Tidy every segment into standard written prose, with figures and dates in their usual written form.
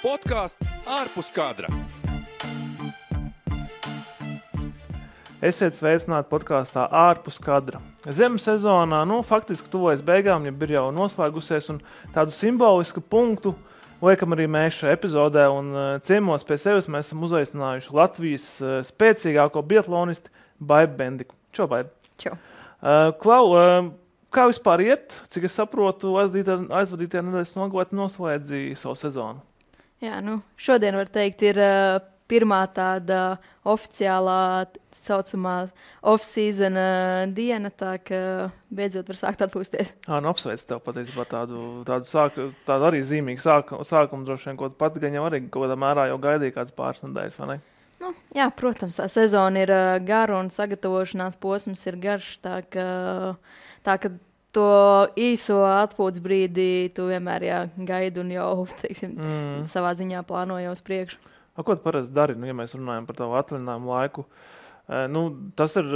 Podcasts ārpus kadra. Esiet sveicināti podkāstā ārpus kadra. Ziemas sezonā, faktiski tuvojas beigām, ja ir jau noslēgusies, un tādu simbolisku punktu liekam arī mēs šajā epizodē, un ciemos pie sevis mēs esam uzaicinājuši Latvijas spēcīgāko biatlonisti Baibu Bendiku. Čau, Baibu! Čau! Klau, kā vispār iet? Cik es saprotu, aizvadītajā nedēļas nogalē noslēdzīja savu sezonu. Jā, šodien var teikt ir pirmā tāda oficiālā saucamā off-season diena, tā ka beidzot var sākt atpūsties. Apsveic tev patiesībā tādu arī zīmīgu sākumu droši vien, ko pat gan jau arī kaut kādā mērā jau gaidīja kāds pāris nedēļas, vai ne? Jā, protams, tā sezona ir gara un sagatavošanās posms ir garš, tā ka to īso atpūtas brīdi tu vienmēr gaidi un jau, savā ziņā plāno jau uz priekšu. Ko tu parasti dari, ja mēs runājam par tavu atvaļinājumu laiku? Tas ir,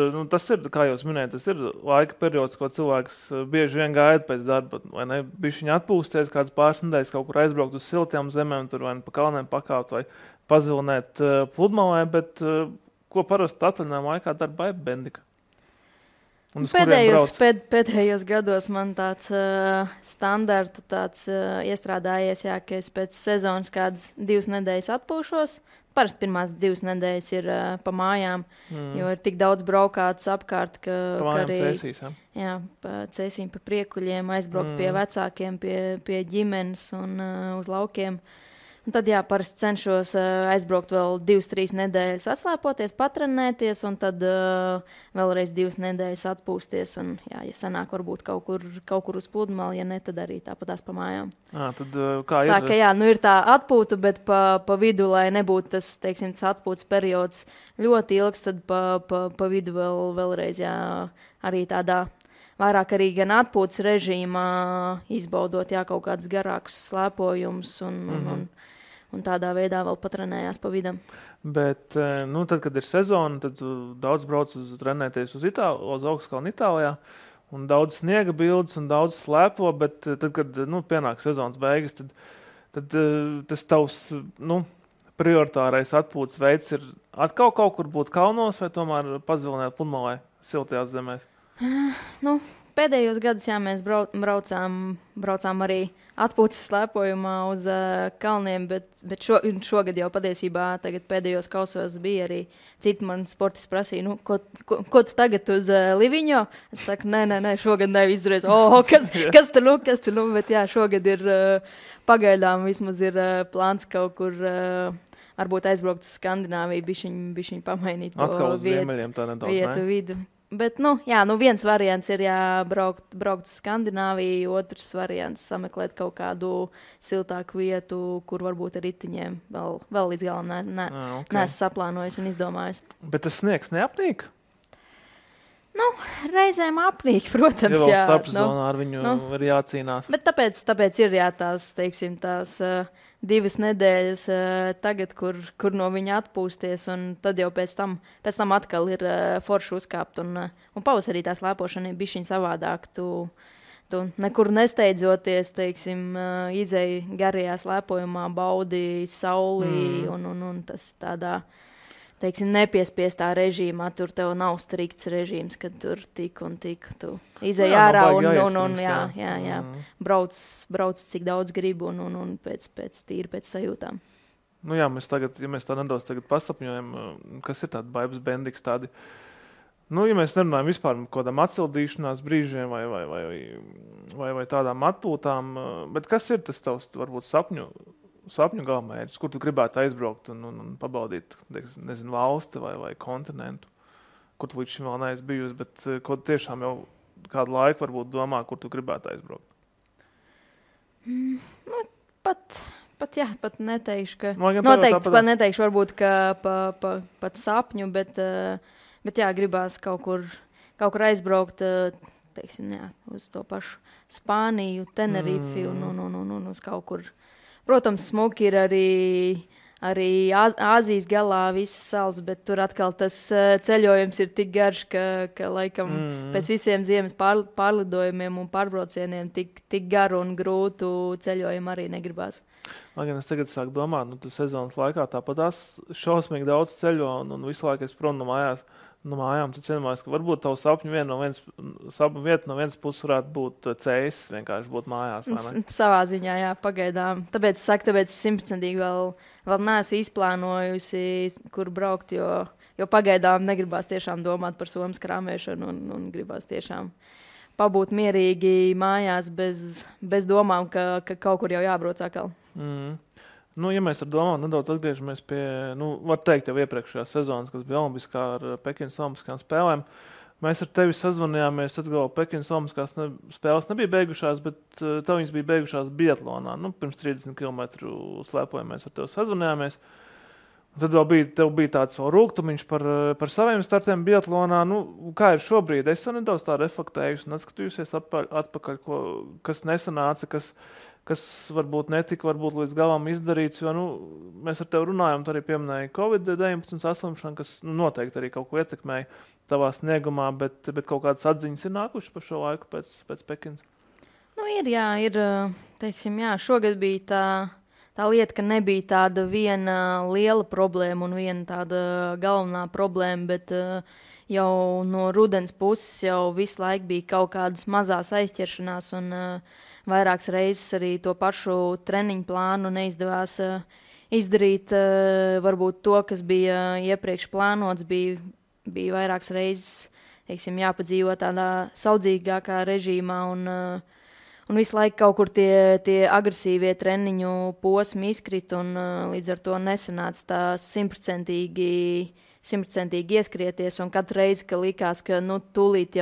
kā jūs minējat, tas ir laika periods, ko cilvēks bieži vien gaida pēc darba, vai ne? Bišķiņ atpūsties, kāds pāris nedēļas kaut kur aizbraukt uz siltām zemēm, tur vai pa kalniem pakāpt vai pazilinēt pludmalē, bet ko parasti atvaļinājumu laikā dara Baiba Bendika? Pēdējos gados man tāds standarta iestrādājies, ka es pēc sezonas kādas 2 nedēļas atpūšos. Parasti pirmās 2 nedēļas ir pa mājām, jo ir tik daudz braukāts apkārt, ka arī cēsīm pa priekuļiem, aizbraukt pie vecākiem, pie ģimenes un uz laukiem. Un tad parasti cenšos aizbraukt vēl 2-3 nedēļas atslēpoties, patrenēties un tad vēlreiz 2 nedēļas atpūsties. Un, ja sanāk varbūt kaut kur uz pludmali, ja ne, tad arī tāpatās pa mājām. Tad kā ir? Tā ka ir tā atpūta, bet pa vidu, lai nebūtu tas, tas atpūtas periods ļoti ilgs, tad pa vidu vēlreiz arī tādā vairāk arī gan atpūtas režīmā izbaudot kaut kādus garākus slēpojumus un tādā veidā vēl patrenējās pa vidam. Bet, tad, kad ir sezona, tad daudz brauc trenēties uz Augstkalnu Itālijā, un daudz sniega bildes un daudz slēpo, bet tad, kad pienāk sezonas beigas, tad tas tavs, prioritārais atpūtas veids ir atkal kaut kur būt kalnos vai tomēr pazilināt pludmalē siltajās zemēs? Pēdējos gadus mēs braucām arī atpūtas slēpojumā uz kalniem, bet šogad jau patiesībā tagad pēdējos kausos bija arī citi mani sportisti prasīja, ko tu tagad uz Liviņo? Es saku, nē, šogad neizdarēs. Kas tur, bet šogad ir pagaidām vismaz ir plāns kaut kur varbūt aizbraukt uz Skandināviju, bišķiņ pamainīt to vietu vidu. Bet, viens variants ir braukt uz Skandināviju, otrs variants sameklēt kaut kādu siltāku vietu, kur varbūt ar ritiņiem vēl līdz galam neesmu saplānojis un izdomājis. Bet tas sniegs neapnīk? Reizēm apnīk, protams. Ja vēl starpsezonā ar viņu ir jācīnās. Bet tāpēc ir tās 2 nedēļas tagad, kur no viņa atpūsties, un tad jau pēc tam atkal ir forši uzkāpt. Un pavasarī tā slēpošana ir bišķiņ savādāk. Tu nekur nesteidzoties, izēji garajā slēpojumā, baudi sauli un tas tādā, nepiespiestā režīmā. Tur tev nav strikts režīms, kad tur tik un tik. Tu izēji ārā un brauc cik daudz gribu un pēc sajūtām. Mēs tagad, ja mēs tā nedaudz tagad pasapņojam, kas ir tāda Baibas Bendiks tādi, ja mēs nerunājam vispār par kādām atsildīšanās brīžiem vai tādām atpūtām, bet kas ir tas tavs, varbūt, sapņu galvmērķis, kur tu gribētu aizbraukt un pabaudīt, valsti vai kontinentu, kur tu līdz šim vēl neesi bijusi, bet ko tiešām jau kādu laiku varbūt domā, kur tu gribētu aizbraukt? Pat neteikšu, ka noteikti neteikšu varbūt, ka pat sapņu, bet gribās kaut kur aizbraukt, uz to pašu Spāniju, Tenerifi un uz kaut kur. Protams, smuki ir arī arī Āzijas galā visas salas, bet tur atkal tas ceļojums ir tik garš, ka laikam pēc visiem ziemas pārlidojumiem un pārbraucieniem tik garu un grūtu ceļojumu arī negribās. Lai gan es tagad sāku domāt, tu sezonas laikā tāpat šausmīgi daudz ceļo un visu laiku es prom no mājām, tu cienījumās, ka varbūt tavu sapņu vieta no vienas puses varētu būt ceļš, vienkārši būt mājās. Savā ziņā, jā, pagaidām. Tāpēc es 100% vēl neesmu izplānojusi, kur braukt, jo pagaidām negribās tiešām domāt par somas krāmēšanu un gribās tiešām pabūt mierīgi mājās bez domām, ka kaut kur jau jābrauc atkal. Ja mēs ar domām nedaudz atgriežamies pie, var teikt, jau iepriekšējās sezonas, kas bija olimpiskā ar Pekinas olimpiskām spēlēm, mēs ar tevi sazvanījāmies, atgalvo Pekinas olimpiskās spēles nebija beigušās, bet tev viņas bija beigušās biatlonā. Pirms 30 km slēpojam mēs ar tevi sazvanījāmies. Tad tev bija tāds vēl rūgtumiņš par saviem startiem biatlonā. Kā ir šobrīd? Es jau nedaudz tā reflektējusi un atskatījusies atpakaļ, kas nesanāca, kas varbūt netika līdz galam izdarīts, jo mēs ar tevi runājam, tu arī pieminēji Covid-19 saslimšanu, kas noteikti arī kaut ko ietekmēja tavā sniegumā, bet kaut kādas atziņas ir nākušas par šo laiku pēc Pekinas? Ir, teiksim, jā, šogad bija tā lieta, ka nebija tāda viena liela problēma un viena tāda galvenā problēma, bet jau no rudens puses jau visu laiku bija kaut kādas mazās aizķeršanās un vairākas reizes arī to pašu treniņu plānu neizdevās izdarīt. Varbūt to, kas bija iepriekš plānots, bija vairākas reizes, teiksim, jāpadzīvo tādā saudzīgākā režīmā un visu laiku kaut kur tie agresīvie treniņu posmi izkrit un līdz ar to nesanāca tā 100% ieskrieties, un katru reizi, ka likās, ka tūlīt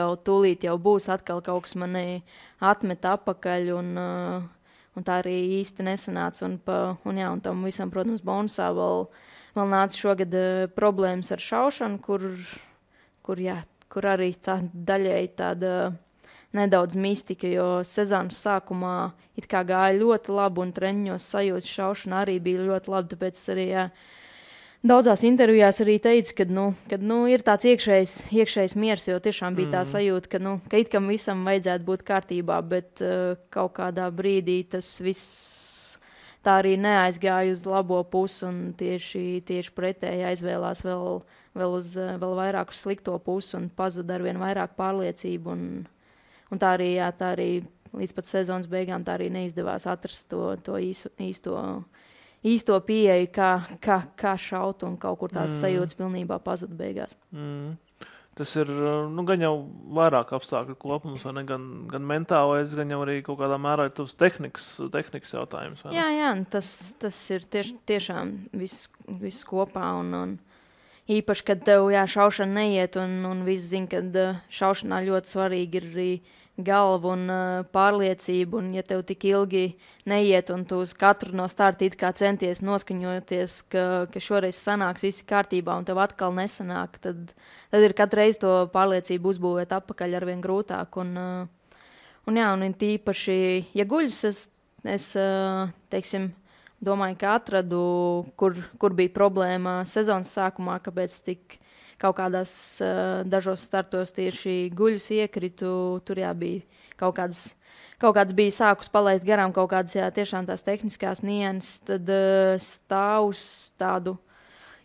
jau būs atkal kaut kas mani atmet apakaļ, un tā arī īsti nesanāca. Un tam visam, protams, bonusā vēl nāca šogad problēmas ar šaušanu, kur arī tā daļēji tāda nedaudz mistika, jo sezonas sākumā it kā gāja ļoti labi, un treniņos sajūta šaušana arī bija ļoti labi, tāpēc arī, daudzās intervijās arī teica, ka ir tāds iekšējs miers, jo tiešām bija tā sajūta, ka it kā visam vajadzētu būt kārtībā, bet kaut kādā brīdī tas viss tā arī neaizgāja uz labo pusi un tieši pretēji aizvēlās vēl vairāk uz slikto pusi un pazuda arvien vairāk pārliecību. Un tā arī līdz pat sezonas beigām tā arī neizdevās atrast to īsto pieeju, kā šaut, un kaut kur tās sajūtas pilnībā pazuda beigās. Tas ir gan jau vairāk apstākļu kopums, vai ne? Gan mentālais, gan jau arī kaut kādā mērā ir tavs tehnikas jautājums. Jā, tas ir tiešām viss kopā. Un īpaši, kad tev šaušana neiet, un visi zina, ka šaušanā ļoti svarīgi ir arī galva un pārliecība, un ja tev tik ilgi neiet, un tu uz katru no starta it kā centies noskaņoties, ka šoreiz sanāks visi kārtībā, un tev atkal nesanāk, tad ir katru reizi to pārliecību uzbūvēt atpakaļ arvien grūtāk. Un tīpaši, ja guļus, es teiksim, domāju, ka atradu, kur bija problēma sezonas sākumā, kāpēc tik kaut kādās dažos startos tieši guļus iekritu. Tur bija kaut kāds bija sākus palaist garām, kaut kādas tiešām tās tehniskās nianses, tad stāvus tādu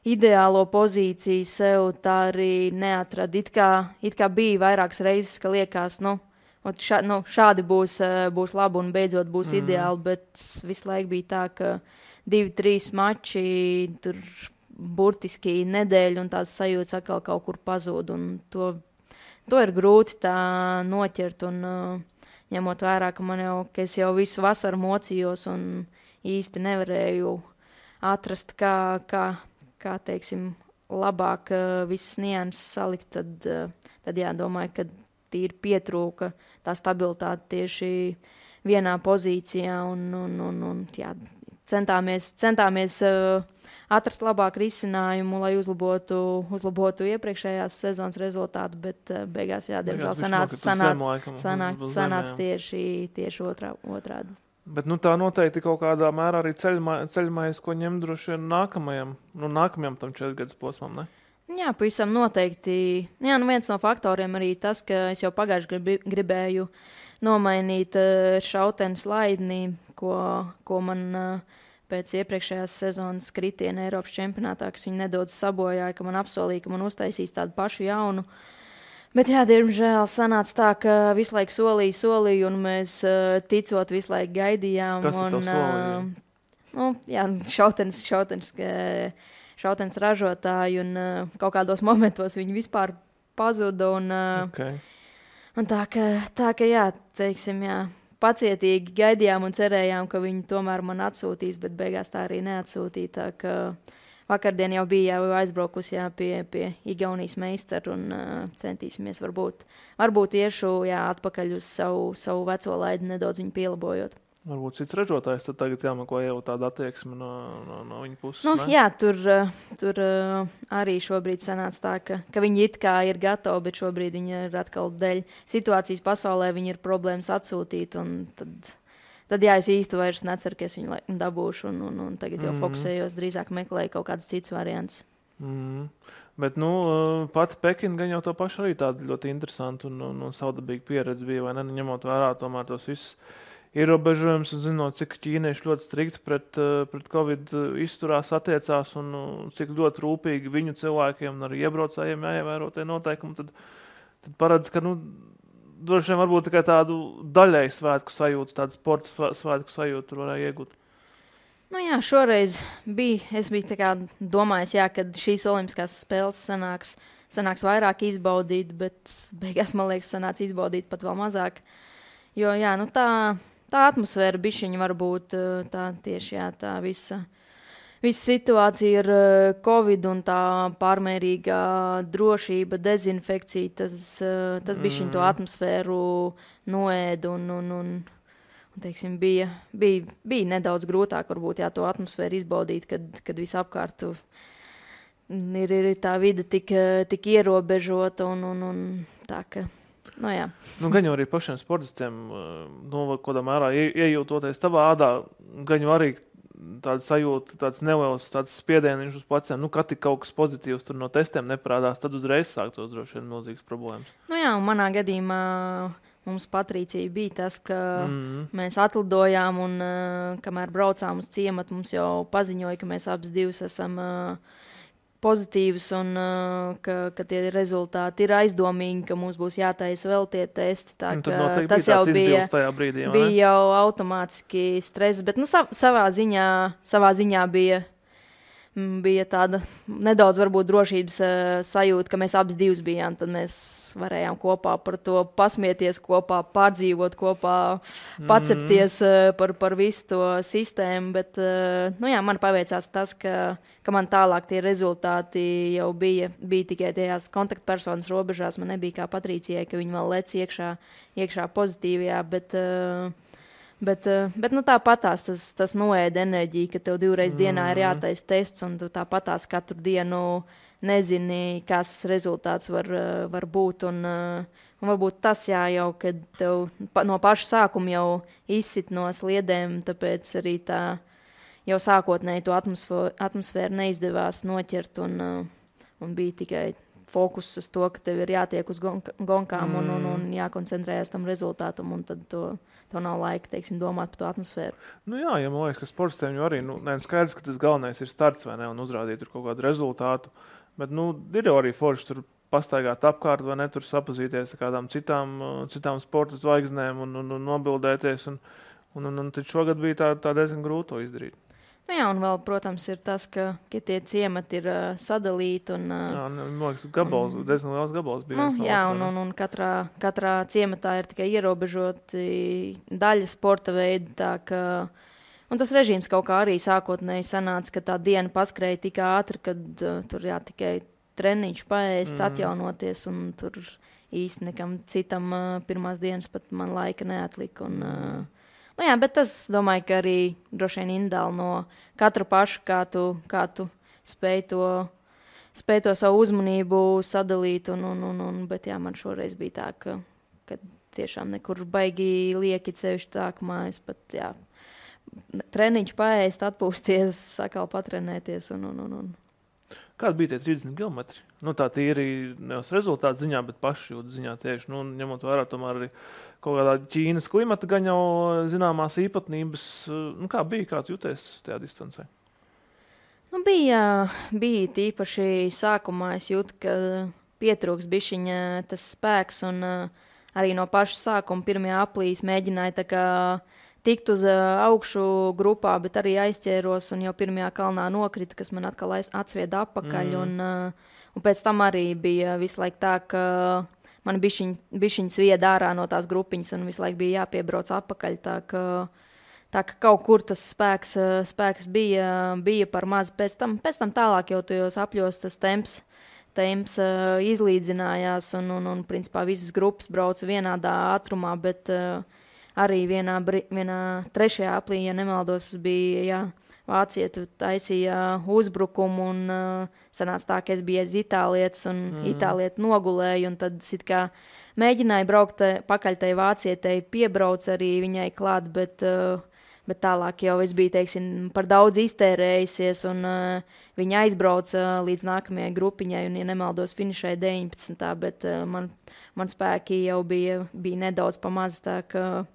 ideālo pozīciju sev tā arī neatrada. It kā bija vairākas reizes, ka liekas, šādi būs labi un beidzot būs ideāli, bet visu laiku bija tā, ka 2-3 mači tur burtiski nedēļu, un tās sajūtas atkal kaut kur pazūd, un to ir grūti tā noķert, un ņemot vērā, ka es jau visu vasaru mocījos un īsti nevarēju atrast, kā teiksim, labāk visas nianses salikt, tad domāju, ka tīri pietrūka tā stabilitāte tieši vienā pozīcijā, un centāmies atrast labāku risinājumu, lai uzlabotu iepriekšējās sezonas rezultātu, bet beigās, diemžēl sanāca tieši otrādi. Bet tā noteikti kaut kādā mērā arī ceļmājas, ko ņem droši vien nākamajam tam 4 gadus posmam, ne? Jā, pavisam noteikti. Jā, viens no faktoriem arī tas, ka es jau pagājuši gribēju nomainīt šautenes laidni, ko man pēc iepriekšējās sezonas kritiena Eiropas čempionātā, kas viņi nedaudz sabojāja, ka man apsolīja, ka man uztaisīs tādu pašu jaunu. Bet, jā, diemžēl sanāca tā, ka visu laiku solīju, un mēs ticot visu laiku gaidījām. Kas tev solīja? Šautenes ražotāji, un kaut kādos momentos viņi vispār pazuda. Un tā ka jā, teiksim, jā, pacietīgi gaidījām un cerējām, ka viņi tomēr man atsūtīs, bet beigās tā arī neatsūtīja. Tā ka vakardien jau bija aizbraukusi pie Igaunijas meistaru un centīsimies varbūt iešu atpakaļ uz savu veco laidi, nedaudz viņu pielabojot. Varbūt cits ražotājs tad tagad jāmako jau tādu attieksmi no viņa puses. Jā, tur arī šobrīd sanāca tā, ka viņi it kā ir gatavi, bet šobrīd viņi ir atkal dēļ situācijas pasaulē, viņi ir problēmas atsūtīt, un tad jā, es īsti vairs neceru, ka es viņu dabūšu, un tagad jau fokusējos, drīzāk meklēju kaut kādas citas variants. Bet, pati Pekina gan jau to pašu arī tāda ļoti interesanta un savdabīga pieredze bija, vai ne, ņemot vērā tomēr tos visus ierobežojums un zinot, cik ķīnieši ļoti strikti pret Covid izturās, attiecās un cik ļoti rūpīgi viņu cilvēkiem un arī iebraucējiem jāievēro tie noteikumi, tad paredz, ka, droši vien varbūt tikai tādu daļēju svētku sajūtu, tādu sporta svētku sajūtu varēja iegūt. Jā, šoreiz es biju tā kā domājis, kad šīs olimpiskās spēles sanāks vairāk izbaudīt, bet beigās, man liekas, sanāca izbaudīt pat vēl mazāk. Jo, jā, tā atmosfēra bišķiņa varbūt tā tieši, tā visa situācija ar Covid un tā pārmērīgā drošība, dezinfekcija, tas bišķiņ to atmosfēru noēda un teiksim, bija nedaudz grūtāk varbūt to atmosfēru izbaudīt, kad visapkārt ir tā vide tik ierobežota un tā, ka jā. Gan jau arī pašiem sportistiem, kādā mērā iejūtoties tavā ādā, gan jau arī tāda sajūta, tāds neliels spiedieniņš uz pleciem, kad tik kaut kas pozitīvs tur no testiem neparādās, tad uzreiz sāktos droši vien milzīgas problēmas. Jā, un manā gadījumā mums Patricija bija tas, ka mēs atlidojām un kamēr braucām uz ciematu, mums jau paziņoja, ka mēs abas divas esam pozitīvs un ka tie rezultāti ir aizdomīgi, ka mums būs jātaisa vēl tie testi. Tā, tas jau bija jau automātiski stress, bet savā ziņā bija tāda nedaudz varbūt drošības sajūta, ka mēs abas divas bijām, tad mēs varējām kopā par to pasmieties kopā, pārdzīvot kopā, pacepties par visu to sistēmu, bet man paveicās tas, ka man tālāk tie rezultāti jau bija tikai tajās kontaktpersonas robežās, man nebija kā Patricijai, ka viņi vēl lec iekšā pozitīvajā, bet tāpatās tas noēda enerģiju, ka tev 2 reizes dienā ir jātaisa tests, un tu tāpatās katru dienu nezini, kas rezultāts var būt. Un varbūt tas jau, kad tev no paša sākuma jau izsit no sliedēm, tāpēc arī tā jau sākotnēji to atmosfēru neizdevās noķert, un bija tikai fokus uz to, ka tev ir jātiek uz gonkām un jākoncentrējas tam rezultātam, un tad to nav laika, teiksim, domāt par to atmosfēru. Jā, man liekas, ka sportistiem jau arī, skaidrs, ka tas galvenais ir starts, vai ne, un uzrādīt kaut kādu rezultātu, bet, ir jau arī forši tur pastaigāt apkārt, vai ne, tur sapazīties ar kādām citām sporta zvaigznēm un nobildēties, un tad šogad bija tā diezgan grūti to izdarīt. Jā, un vēl, protams, ir tas, ka tie ciemati ir sadalīti. Man liekas, diezgan liels gabals bija. Un katrā ciematā ir tikai ierobežoti daļa sporta veidi. Un tas režīms kaut kā arī sākotnēji sanāca, ka tā diena paskrēja tik ātri, kad tur tikai treniņš paēst, atjaunoties, un tur īsti nekam citam pirmās dienas pat man laika neatlika. Bet tas, domāju, ka arī droši vien individuāli no katra paša, kā tu spēj to savu uzmanību sadalīt. Bet man šoreiz bija tā, ka tiešām nekur baigi lieki ceļš tā, ka es pat treniņš paēst, atpūsties, sakal patrenēties un. Kādi bija tie 30 kilometri? Nu, tā tīri nevis rezultātu ziņā, bet pašjūtas ziņā tieši. Nu, ņemot vērā tomēr arī kaut kādā Ķīnas klimata gan jau zināmās īpatnības. Nu, kā bija, kā tu jūties tajā distancē? Nu, bija tīpaši sākumā es jūtu, ka pietrūks bišķiņa tas spēks un arī no paša sākuma pirmajā aplīs mēģināja tā kā tikt uz augšu grupā, bet arī aizķēros un jau pirmajā kalnā nokrita, kas man atkal atsvieda apakaļ. Un pēc tam arī bija visu laiku tā, ka man bišķiņ svieda ārā no tās grupiņas un visu laiku bija jāpiebrauc apakaļ. Tā ka kaut kur tas spēks bija par maz. Pēc tam tālāk jau tajos apļos tas temps izlīdzinājās un principā visas grupas brauca vienādā ātrumā, bet arī vienā trešajā aplī, ja nemaldos, bija vācieti taisīja uzbrukumu un sanāca tā, ka es biju aiz itālietes un itālieti nogulēju un tad it kā mēģināju braukt pakaļ tai vācietei, piebrauc arī viņai klāt, bet tālāk jau es biju, teiksim, par daudz iztērējusies un viņa aizbrauca līdz nākamajai grupiņai un, ja nemaldos, finišēja 19. Bet man spēki jau bija nedaudz pamaz, tā ka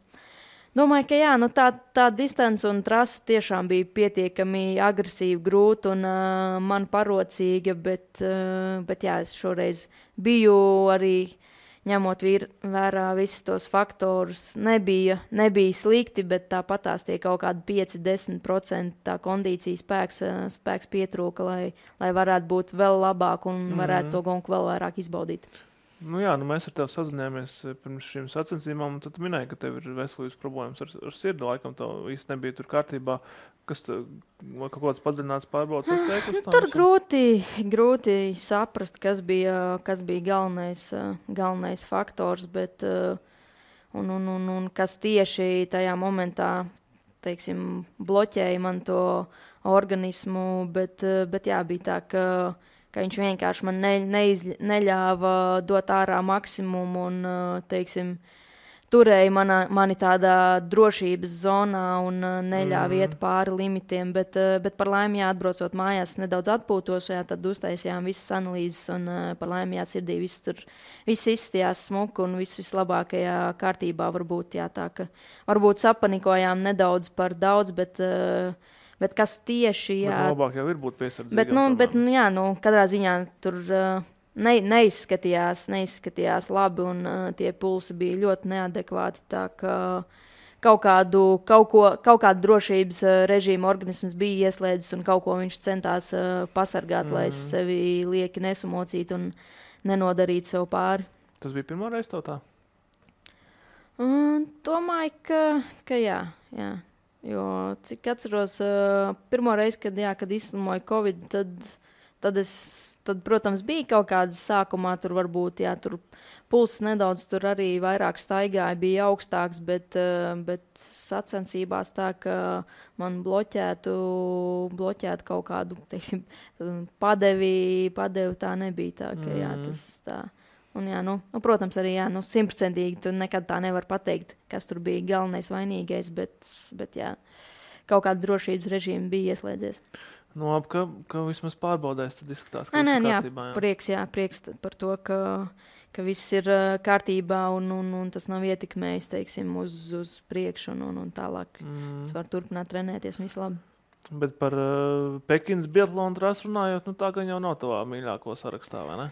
domāju, ka jā, nu tā distance un trasa tiešām bija pietiekami agresīva, grūta un man parocīga, bet jā, es šoreiz biju arī ņemot vērā visus tos faktorus, nebija slikti, bet tāpatās tie kaut kādi 5-10% tā kondīcija spēks pietrūka, lai varētu būt vēl labāk un varētu to gonku vēl vairāk izbaudīt. Nu jā, mēs ar tevi sazinājāmies pirms šīm sacensībām, un tad minēji, ka tev ir veselības problēmas ar sirdi, laikam tev īsti nebija tur kārtībā. Kas vai kaut kāds padziļināts pārbaudas veikums? Tur grūti saprast, kas bija galvenais faktors, bet un kas tieši tajā momentā, teiksim, bloķēja man to organismu, bet jā, bija tā, ka viņš vienkārši man neļāva dot ārā maksimumu un, teiksim, turēja mani tādā drošības zonā un neļāva iet pāri limitiem, bet par laimi, atbraucot mājās, nedaudz atpūtos, tad uztaisījām visas analīzes un par laimi, sirdī viss izstījās smuku un viss vislabākajā kārtībā varbūt, tā ka varbūt sapanikojām nedaudz par daudz, bet kas tieši, jā. Bet labāk jau ir būt piesardzīgam. Bet katrā ziņā tur neizskatījās labi un tie pulsi bija ļoti neadekvāti, tā ka kaut kādu drošības režīmu organisms bija ieslēdzis un kaut ko viņš centās pasargāt, lai es sevi lieki nesamocītu un nenodarītu sev pāri. Tas bija pirmo reizi tev tā? Domāju, ka jā. Jo, cik atceros, pirmo reizi, kad izslimoju Covid, tad, protams, bija kaut kādas sākumā, tur varbūt, tur pulss nedaudz tur arī vairāk staigāja, bija augstāks, bet sacensībās tā, ka man bloķētu kaut kādu, teiksim, padevi tā nebija tā, ka jā, tas tā. Un jā, protams, arī 100% tu nekad tā nevar pateikt, kas tur bija galvenais vainīgais, bet jā, kaut kāda drošības režīma bija ieslēdzies. Ka vismaz pārbaudēs, tad izskatās, ka viss ir kārtībā. Prieks par to, ka viss ir kārtībā un tas nav ietekmējis, teiksim, uz priekšu un tālāk. Es varu turpināt trenēties un viss labi. Bet par Pekinas biatlonu trasu runājot, tā gan jau nav tavā mīļāko sarakstā, vai ne?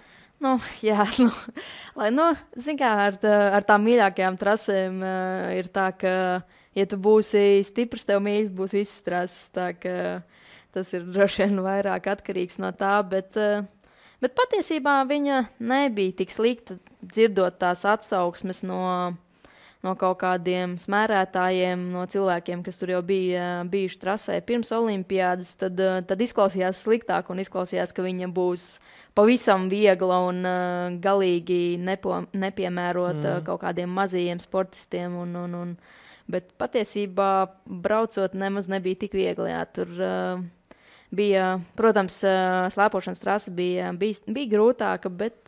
Zin kā, ar tām mīļākajām trasēm ir tā, ka, ja tu būsi stiprs, tev mīļas būs visas trases, tā ka tas ir droši vien vairāk atkarīgs no tā, bet patiesībā viņa nebija tik slikta, dzirdot tās atsauksmes no kaut kādiem smērētājiem, no cilvēkiem, kas tur jau bija bijuši trasē pirms olimpiādas, tad izklausījās sliktāk un izklausījās, ka viņa būs pavisam viegla un galīgi nepiemērota kaut kādiem mazajiem sportistiem. Bet patiesībā braucot nemaz nebija tik viegli. Jā, tur bija, protams, slēpošanas trasa bija grūtāka, bet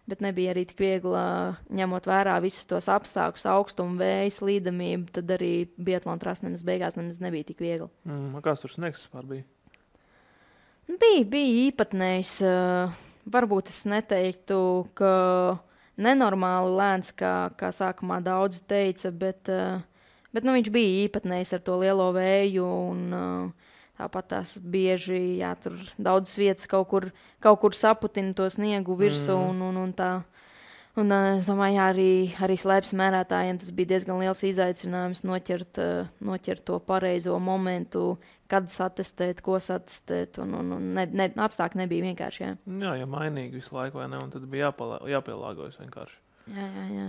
bet nebija arī tik viegli, ņemot vērā visus tos apstākļus, augstumu, vēju, slīdamību, tad arī biatlona trasa beigās nebija tik viegli. Kāds tur sniegs vispār bija? Bija īpatnējs. Varbūt es neteiktu, ka nenormāli lēns, kā sākumā daudzi teica, bet viņš bija īpatnējs ar to lielo vēju un tāpat tās bieži, tur daudzas vietas kaut kur saputina to sniegu virsū un tā. Un es domāju, arī slēpes mērētājiem tas bija diezgan liels izaicinājums noķert to pareizo momentu, kad satestēt, ko satestēt. Apstākļi nebija vienkārši. Jā, ja mainīgi visu laiku, vai ne? Un tad bija jāpielāgojas vienkārši. Jā.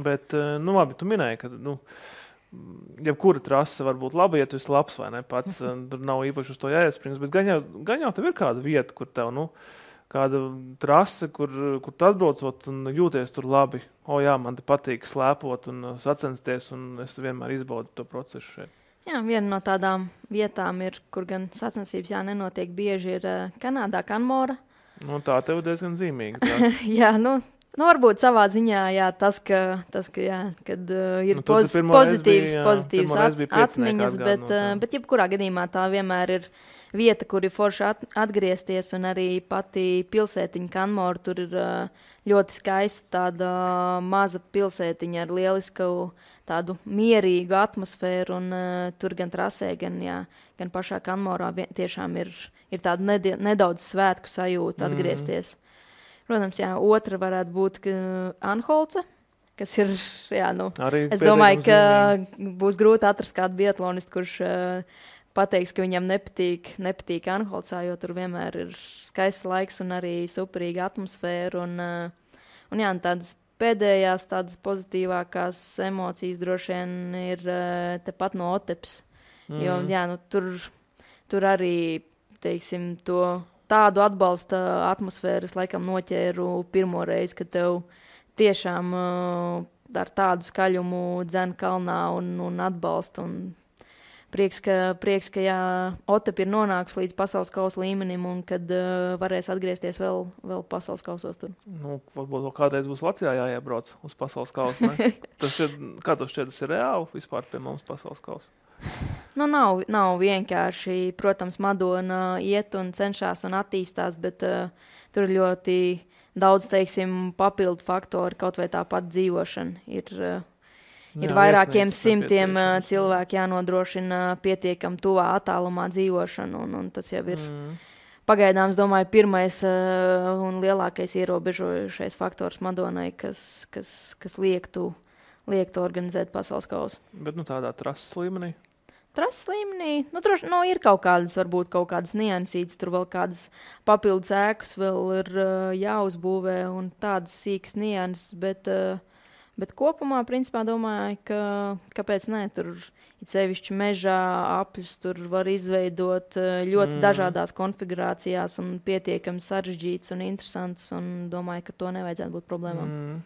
Bet, labi, tu minēji, ka, jebkura trase var būt laba, ja tu esi labs vai ne pats. Tur nav īpaši uz to jāiesprings, bet gan jau tev ir kāda vieta, kur tev, kāda trase, kur tu atbraucot un jūties tur labi. Jā, man te patīk slēpot un sacensties, un es vienmēr izbaudu to procesu šeit. Jā, viena no tādām vietām ir, kur gan sacensības nenotiek bieži, ir Kanādā, Kanmora. Tā tev diezgan zīmīga. Jā, varbūt savā ziņā tas, kad ir pozitīvas atmiņas, bet jebkurā gadījumā tā vienmēr ir vieta, kur ir forši atgriezties, un arī pati pilsētiņa Kanmora. Tur ir ļoti skaista tāda maza pilsētiņa ar lielisku tādu mierīgu atmosfēru, un tur gan trasē, gan pašā Kanmorā tiešām ir tāda nedaudz svētku sajūta atgriezties. Protams, otra varētu būt Anholce, kas ir, es domāju, ka būs grūti atrast kādu biatlonistu, kurš pateiks, ka viņam nepatīk Anholcā, jo tur vienmēr ir skaists laiks un arī superīga atmosfēra. Un tādas pēdējās, tādas pozitīvākās emocijas droši vien ir tepat no Otepas. Jo, tur arī, teiksim, tādu atbalsta atmosfēru es laikam noķēru pirmo reizi, kad tev tiešām ar tādu skaļumu dzen kalnā un atbalsta. Un prieks, ka Otapa ir nonākusi līdz pasaules kausa līmenim un kad varēs atgriezties vēl pasaules kausos tur. Varbūt kādreiz būs Latvijā jāiebrauc uz pasaules kausu, ne? Kā tas šķiet, tas ir reāli vispār pie mums pasaules kausa? Nav vienkārši. Protams, Madona iet un cenšas un attīstās, bet tur ir ļoti daudz, teiksim, papildu faktori, kaut vai tāpat dzīvošana. Ir vairākiem simtiem cilvēku jānodrošina pietiekam tuvā attālumā dzīvošanu, un tas jau ir pagaidām, es domāju, pirmais un lielākais ierobežojušais faktors Madonai, kas liektu organizēt pasaules kausu. Bet tādā trases līmenī? Trases līmenī, ir kaut kādas niansītas, tur vēl kādas papildus ēkas vēl ir jāuzbūvē un tādas sīkas nianses, bet kopumā, principā, domāju, ka kāpēc ne, tur ir sevišķi mežā apļus, tur var izveidot ļoti dažādās konfigurācijās un pietiekami sarežģīts un interesants, un domāju, ka to nevajadzētu būt problēmām.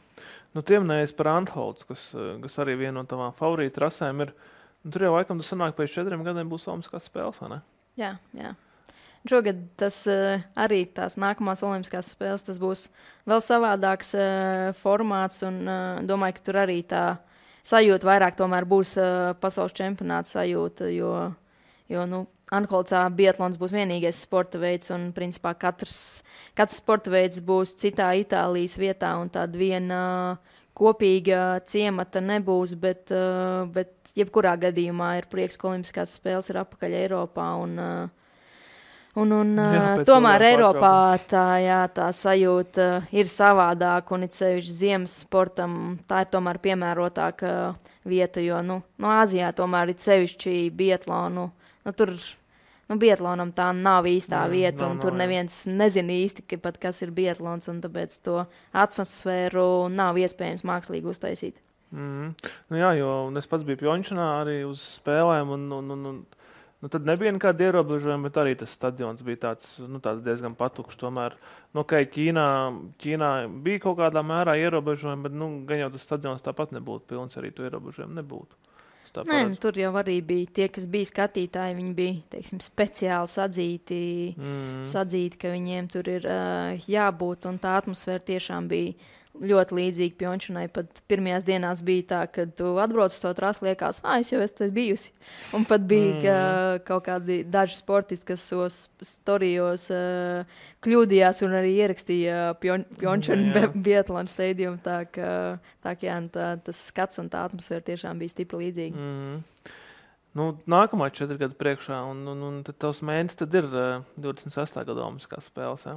Tiem nees par Antholts, kas arī viena no tavām favorīta trasēm ir. Tur jau laikam tas sanāk pēc 4 gadiem būs olimpiskās spēles, vai ne? Jā. Šogad tas arī tās nākamās olimpiskās spēles, tas būs vēl savādāks formāts, un domāju, ka tur arī tā sajūta vairāk tomēr būs pasaules čempionāta sajūta, jo Anholcā biatlons būs vienīgais sporta veids, un principā katrs sporta veids būs citā Itālijas vietā, un tāda viena kopīga ciemata nebūs, bet jebkurā gadījumā ir prieks, ka olimpiskās spēles ir apakaļ Eiropā, un tomēr Eiropā tā sajūta ir savādāka, un it sevišķi ziemas sportam tā ir tomēr piemērotāka vieta, jo Āzijā tomēr ir sevišķi biatlonu, tur biatlonam tā nav īstā vieta, un tur neviens nezina īsti, kas ir biatlons, un tāpēc to atmosfēru nav iespējams mākslīgi uztaisīt. Jā, jo es pats biju Pjončanā arī uz spēlēm, un tad nebija nekāda ierobežojuma, bet arī tas stadions bija tāds diezgan patukšs. Tomēr, Ķīnā bija kaut kādā mērā ierobežojumi, bet gan jau tas stadions tāpat nebūtu pilns, arī to ierobežojumu nebūtu. tā Nē, paredz. tur jau arī bija tie, kas bija skatītāji, viņi bija, teiksim, speciāli sadzīti, ka viņiem tur ir jābūt, un tā atmosfēra tiešām bija ļoti līdzīga Pjončanai. Pat pirmajās dienās bija tā, kad tu atbrauc uz to trasi, liekas, es jau esmu bijusi. Un pat bija kaut kādi daži sportisti, kas savos storijos kļūdījās un arī ierakstīja Pjončanu Biatlona stadiumu. Tā kā tas skats un tā atmosfēra tiešām bija stipri līdzīga. Nu, nākamā 4 gadu priekšā, un tad tavs mēnesis tad ir 28. gada olimpiskās spēles, jā?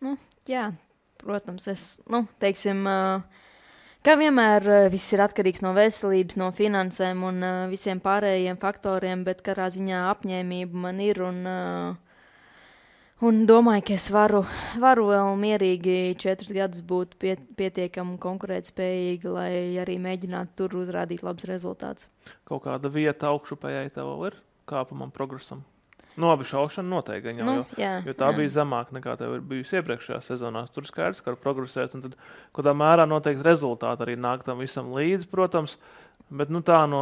Nu, jā. Protams, teiksim, kā vienmēr viss ir atkarīgs no veselības, no finansēm un visiem pārējiem faktoriem, bet katrā ziņā apņēmība man ir un domāju, ka es varu vēl mierīgi 4 gadus būt pietiekami konkurētspējīgi, lai arī mēģinātu tur uzrādīt labus rezultātus. Kaut kāda vieta augšupējai tev ir kāpumam, progresam? Abi šaušana noteikti, jo tā bija zemāka nekā tev ir bijusi iepriekšējā sezonā. Tur skaidrs, ka var progresēt, un tad kādā mērā noteikti rezultāti arī nāk tam visam līdzi, protams, bet tā no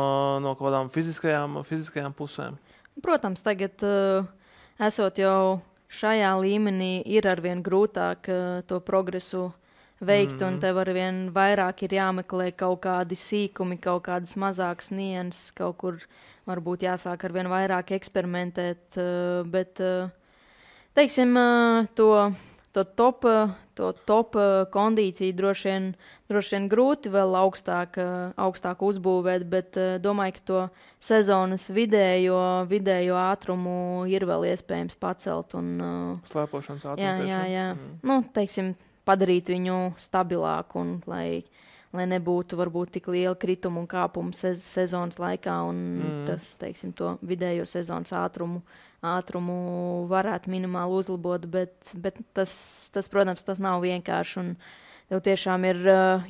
kaut kādām fiziskajām pusēm. Protams, tagad esot jau šajā līmenī, ir arvien grūtāk to progresu veikt, un tev arvien vairāk ir jāmeklē kaut kādi sīkumi, kaut kādas mazākas nianses, kaut kur varbūt jāsāk arvien vairāk eksperimentēt, bet, teiksim, to top kondīciju droši vien grūti vēl augstāk uzbūvēt, bet domāju, ka to sezonas vidējo ātrumu ir vēl iespējams pacelt. Slēpošanas ātrumu. Jā. Teiksim, padarīt viņu stabilāku un lai nebūtu varbūt tik liela krituma un kāpuma sezonas laikā, un tas, teiksim, to vidējo sezonas ātrumu varētu minimāli uzlabot, bet tas, protams, tas nav vienkārši, un tev tiešām ir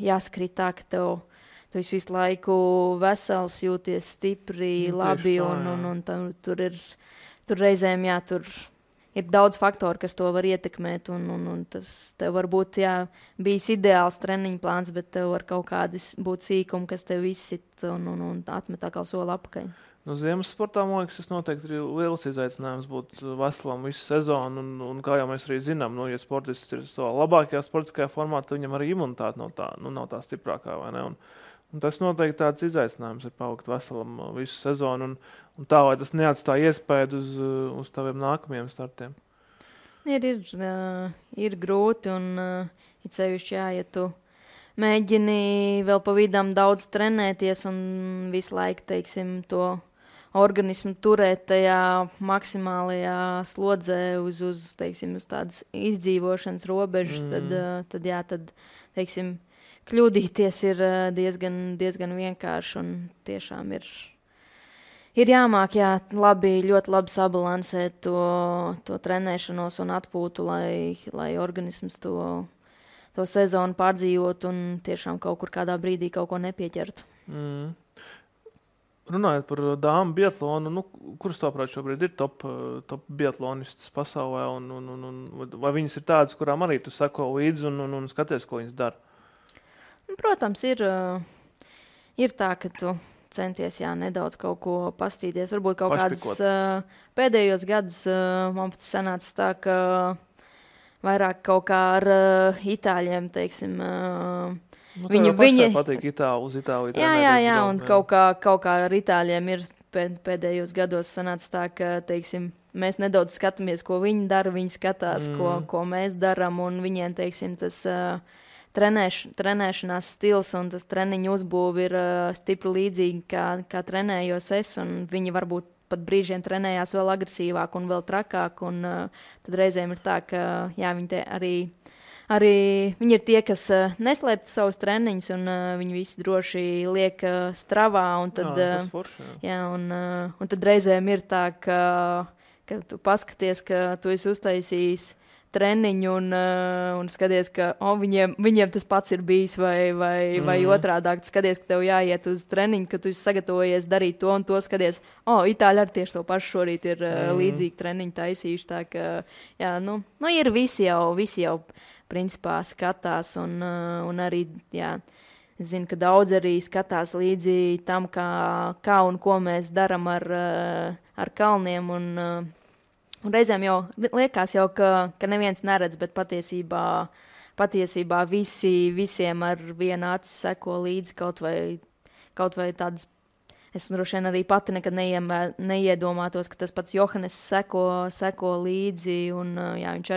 jāskrīt tā, ka tu visu laiku vesels, jūties stipri, labi, un tur reizēm, tur ir daudz faktoru, kas to var ietekmēt, un tas tev var būt, bijis ideāls treniņu plāns, bet tev var kaut kādi būt sīkumi, kas tev izsit un atmet atkal soli apakaļ. Ziemas sportā, man liekas, tas noteikti ir liels izaicinājums būt veselam visu sezonu, un kā jau mēs arī zinām, ja sportists ir savā labākajā sportiskajā formā, tad viņam arī imunitāte nav tā stiprākā, vai ne? Un tas noteikti tāds izaicinājums ir palikt veselam visu sezonu, un tā, lai tas neatstāja iespēju uz taviem nākamajiem startiem. Ir grūti, un it sevišķi, ja tu mēģini vēl pa vidam daudz trenēties un visu laiku, teiksim, to organismu turēt tajā maksimālajā slodzē uz tādas izdzīvošanas robežas, tad, teiksim, kļūdīties ir diezgan vienkārši, un tiešām ir jāmāk, ļoti labi sabalansēt to trenēšanos un atpūtu, lai organisms to sezonu pārdzīvot un tiešām kaut kur kādā brīdī kaut ko nepieķertu. Runājot par dāmu biatlonu, kuras tāprāt šobrīd ir top biatlonistas pasaulē, un vai viņas ir tādas, kurām arī tu seko līdzi un skaties, ko viņas dara? Protams, ir tā, ka tu centies nedaudz kaut ko pastīties. Varbūt kaut kādas pēdējos gadus man pat sanāca tā, ka vairāk kaut kā ar itāļiem, teiksim, viņi patīk uz Itāliju. Jā, un kaut kā ar itāļiem ir pēdējos gados sanāca tā, ka, teiksim, mēs nedaudz skatāmies, ko viņi dara, viņi skatās, ko mēs daram, un viņiem, teiksim, tas trenēšanās stils un tas treniņu uzbūve ir stipri līdzīgi, kā trenējos es, un viņi varbūt pat brīžiem trenējās vēl agresīvāk un vēl trakāk, un tad reizēm ir tā, ka viņi arī viņi ir tie, kas neslēptu savus treniņus, un viņi visi droši liek stravā, un tad, un tad reizēm ir tā, ka tu paskaties, ka tu esi uztaisījis treniņu un skaties, ka viņiem tas pats ir bijis, vai otrādāk. Tu skaties, ka tev jāiet uz treniņu, ka tu esi sagatavojies darīt to un to, skaties, Itāļi ar tieši to pašu šorīt ir līdzīgi treniņu taisījuši. Tā ka, ir visi jau principā skatās un arī, Es zinu, ka daudz arī skatās līdzi tam, kā un ko mēs darām ar kalniem. Un reizēm jau liekas, ka neviens neredz, bet patiesībā visiem ar vienu aci seko līdzi kaut vai tādas. Es droši vien arī pati nekad neiedomātos, ka tas pats Johannes seko līdzi. Un, jā, viņš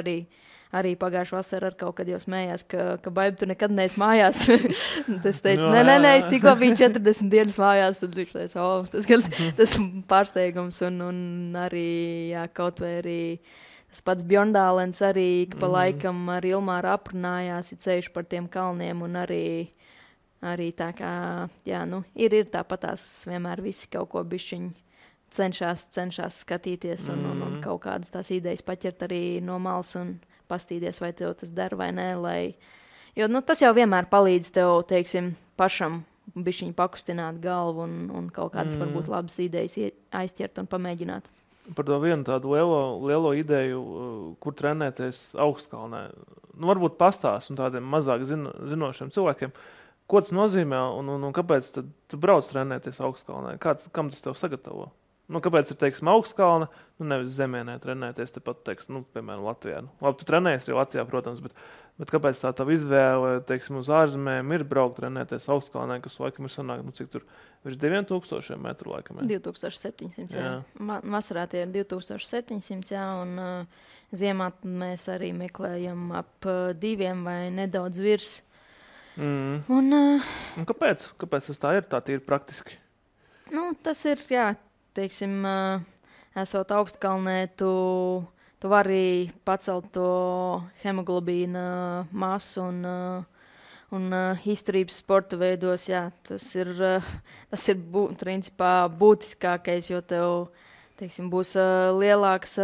arī pagājušā vasarā ar kaut kad jau smējās, ka Baiba, tu nekad neesi mājās. Tas teica, nē, es tikko biju 40 dienas mājās, tad viņš teica, tas pārsteigums. Un arī, jā, kaut vai arī tas pats Bjorndālens arī pa laikam ar Ilmāru aprunājās, ceļš par tiem kalniem un arī tā kā, jā, ir tāpatās vienmēr visi kaut ko bišķiņ cenšas skatīties un kaut kādas tās idejas paķert arī no malas un pastīties, vai tev tas der vai nē, jo tas jau vienmēr palīdz tev, teiksim, pašam bišķiņ pakustināt galvu un kaut kādas varbūt labas idejas aizķert un pamēģināt. Par to vienu tādu lielo ideju, kur trenēties augstkalnē. Varbūt pastāst un tādiem mazāk zinošiem cilvēkiem, ko tas nozīmē un kāpēc tad tu brauc trenēties augstkalnē? Kam tas tev sagatavo? Kāpēc ir, teiksim, augstkalna, nevis zemienē trenēties, tepat, teiksim, piemēram, Latvijā. Labi, tu trenējies arī Latvijā, protams, bet kāpēc tā tava izvēle, teiksim, uz ārzemēm ir braukt trenēties augstkalnē, kas laikam ir sanāk, cik tur virs 2000 metru laikam? 2700, jā. Vasarā tie ir 2700, jā, un ziemā mēs arī meklējam ap 2 vai nedaudz virs. Un kāpēc? Kāpēc tas tā ir? Tā ir praktiski. Tas ir, jā. Teiksim, esot augstkalnē, tu vari pacelt to hemoglobīna masu un izturības sporta veidos. Jā, tas ir principā būtiskākais, jo tev, teiksim, būs lielāks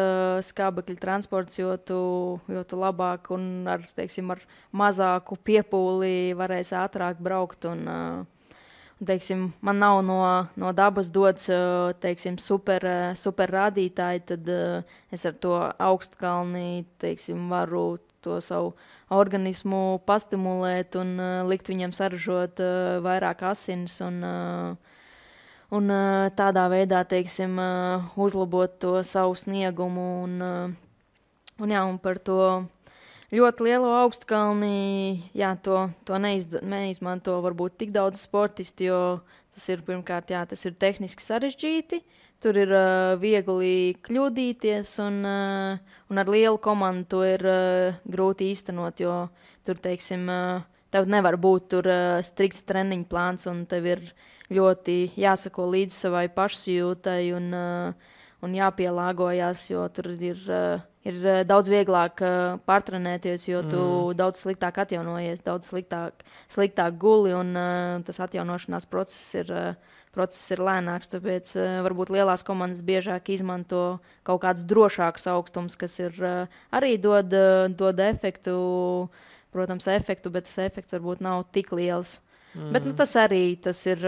skābekļa transports, jo tu labāk un ar mazāku piepūli varēsi ātrāk braukt teiksim, man nav no dabas dots, teiksim, super rādītāji, tad es ar to augstkalni, teiksim, varu to savu organismu pastimulēt un likt viņam saražot vairāk asins un tādā veidā, teiksim, uzlabot to savu sniegumu un par to ļoti lielo augstkalni, jā, to neizmanto varbūt tik daudz sportisti, jo tas ir pirmkārt, jā, tas ir tehniski sarežģīti, tur ir viegli kļūdīties un ar lielu komandu to ir grūti īstenot, jo tur, teiksim, tev nevar būt tur strikts treniņu plāns un tev ir ļoti jāsako līdz savai pašsajūtai un jāpielāgojās, jo tur ir daudz vieglāk pārtrenēties, jo tu daudz sliktāk atjaunojies, daudz sliktāk guli, un tas atjaunošanās process ir lēnāks, tāpēc varbūt lielās komandas biežāk izmanto kaut kādus drošākus augstumus, kas ir arī dod efektu, protams, bet tas efekts varbūt nav tik liels. Bet tas ir...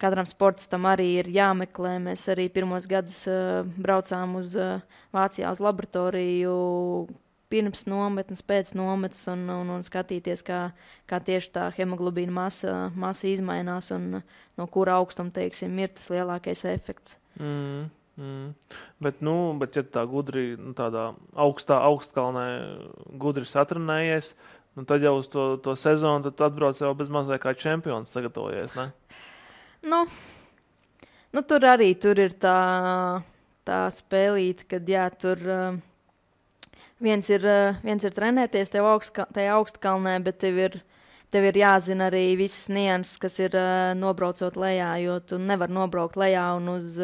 Katram sportistam arī ir jāmeklē. Mēs arī pirmos gadus braucām uz Vācijā uz laboratoriju pirms nometnes, pēc nometnes un skatīties, kā tieši tā hemoglobīna masa izmainās un no kura augstuma, teiksim, ir tas lielākais efekts. Bet ja tā gudri, tādā augstkalnē gudri satrenējies, tad jau uz to sezonu tad atbrauc jau bez mazliet kā čempions sagatavojies, ne? Tur ir tā spēlīte, kad jā, tur viens ir trenēties tajā augstkalnē, bet tev ir jāzina arī visas nianses, kas ir nobraucot lejā, jo tu nevar nobraukt lejā un uz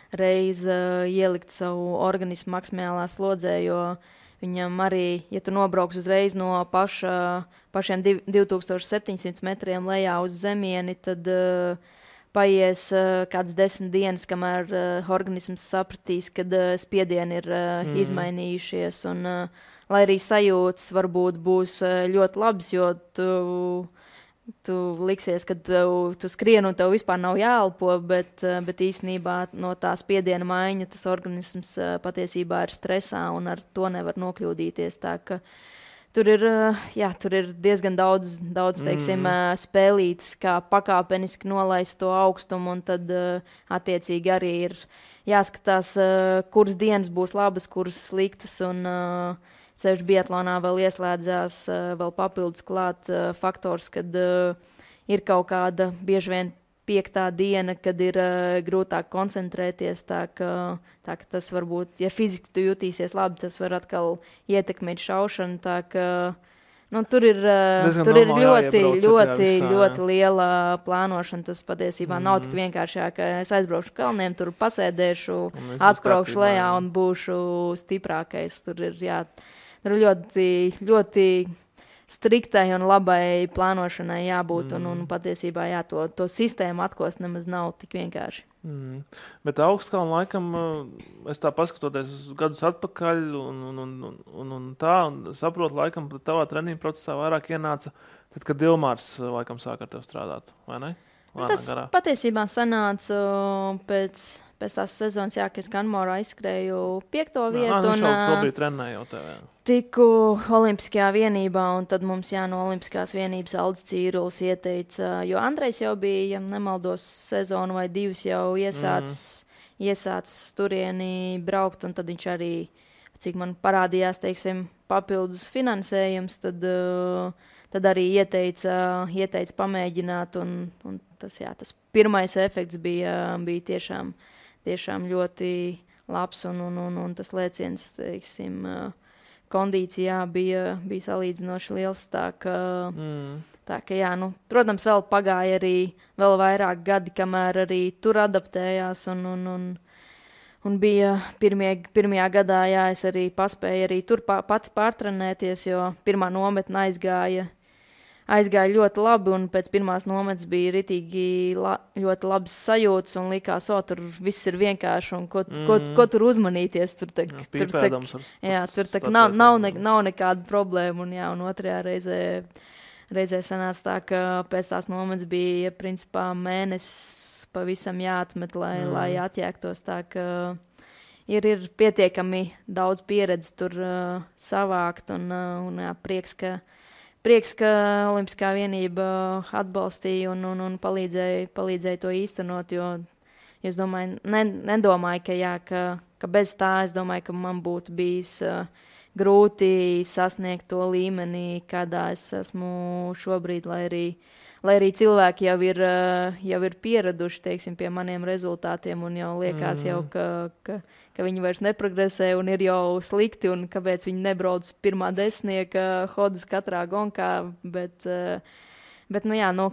reizi ielikt savu organismu maksimālā slodzē, jo viņam arī, ja tu nobrauks uzreiz no pašiem 2700 metriem lejā uz zemieni, tad paies kāds 10 dienas, kamēr organisms sapratīs, kad spiedieni ir izmainījušies. Un, lai arī sajūtas varbūt būs ļoti labas, jo tu liksies, ka tu skrien un tev vispār nav jāelpo, bet īstenībā no tā spiediena maiņa tas organisms patiesībā ir stresā un ar to nevar nokļūdīties. Tā ka Tur ir diezgan daudz teiksim, spēlītas, kā pakāpeniski nolaist to augstumu, un tad attiecīgi arī ir jāskatās, kuras dienas būs labas, kuras sliktas, un ceļš biatlonā vēl ieslēdzās, vēl papildus klāt faktors, kad ir kaut kāda bieži vien 5. diena, kad ir grūtāk koncentrēties, tā ka tas varbūt, ja fiziski tu jutīsies labi, tas var atkal ietekmēt šaušanu, tā ka tur ir ļoti liela plānošana. Tas patiesībā nav tik vienkārši, ka es aizbraukšu kalniem, tur pasēdēšu, atbraukšu lejā un būšu stiprākais. Tur ir ļoti, ļoti striktai un labai plānošanai jābūt, un patiesībā to sistēmu atkost nemaz nav tik vienkārši. Bet augstkalnu laikam, es tā paskatoties gadus atpakaļ un saprotu, laikam tavā treniņu procesā vairāk ienāca, tad, kad Ilmārs laikam sāk ar tevi strādāt, vai ne? Tas patiesībā sanāca pēc tās sezonas, ka es Kanmorā izskrēju 5. vietu. Un šobrīd trenēju jau tevi. Tiku Olimpiskajā vienībā, un tad mums no Olimpiskās vienības Aldis Cīrulis ieteica, jo Andrejs jau bija, ja nemaldos, sezonu vai 2 jau iesācis turieni braukt, un tad viņš arī, cik man parādījās, teiksim, papildus finansējums, tad arī ieteica pamēģināt, un tas pirmais efekts bija tiešām ļoti labs, un tas lēciens, teiksim, kondīcijā bija salīdzinoši liels, tā ka protams, vēl pagāja arī vēl vairāk gadi, kamēr arī tur adaptējās, un bija pirmajā gadā, es arī paspēju arī tur pati pārtrenēties, jo pirmā nometne aizgāja ļoti labi, un pēc pirmās nometnes bija ritīgi ļoti labas sajūtas, un likās, tur viss ir vienkārši, un ko tur uzmanīties. Tur nav nekāda problēma, un otrajā reizē sanāca tā, ka pēc tās nometnes bija principā mēnesis pavisam jāatmet, lai atjēgtos, tā ka ir pietiekami daudz pieredzi tur savākt, un prieks, ka Olimpiskā vienība atbalstīja un palīdzēja to īstenot, jo es nedomāju, ka bez tā, es domāju, ka man būtu bijis grūti sasniegt to līmeni, kādā es esmu šobrīd, lai arī cilvēki jau ir pieraduši, teiksim, pie maniem rezultātiem, un jau liekas ka viņi vairs neprogresē un ir jau slikti, un kāpēc viņi nebrauc pirmā desmitnieka hodas katrā gonkā, bet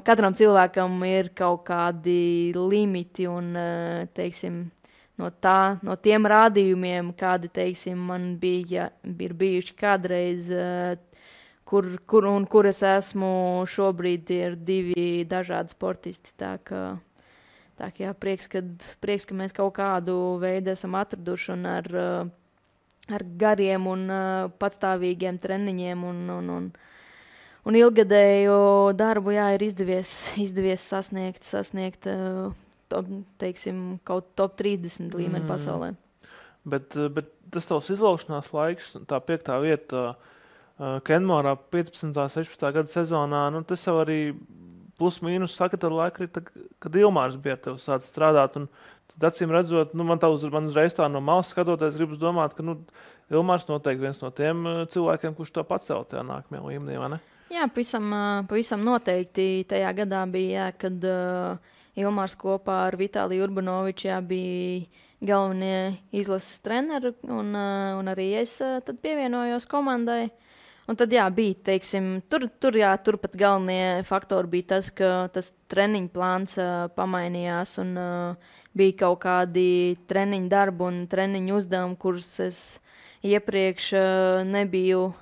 katram cilvēkam ir kaut kādi limiti, un, teiksim, no tiem rādījumiem, kādi, teiksim, man ir bijuši kādreiz, kur es esmu šobrīd, ir 2 dažādi sportisti, tā ka prieks, ka mēs kaut kādu veidu esam atraduši, un ar gariem un patstāvīgiem treniņiem un ilgadēju darbu, ir izdevies sasniegt teiksim, kaut top 30 līmeni pasaulē. Bet tas tavs izlaušanās laiks, tā 5. vieta Kenmorā 15. 16. gada sezonā, tas jau arī plus mīnus saka, tad laika, kad Ilmārs bija ar tevi sācis strādāt, un tad acīm redzot, man uzreiz tā no malas skatoties, gribas domāt, ka Ilmārs noteikti viens no tiem cilvēkiem, kurš to pacēl tajā nākamajā līmenī, vai ne? Jā, pavisam noteikti tajā gadā bija, kad Ilmārs kopā ar Vitāliju Urbanoviču bija galvenie izlases treneri, un arī es tad pievienojos komandai. Un tad bija, teiksim, turpat galvenie faktori bija tas, ka tas treniņu plāns pamainījās, un bija kaut kādi treniņu darbi un treniņu uzdevumi, kurus es iepriekš nebiju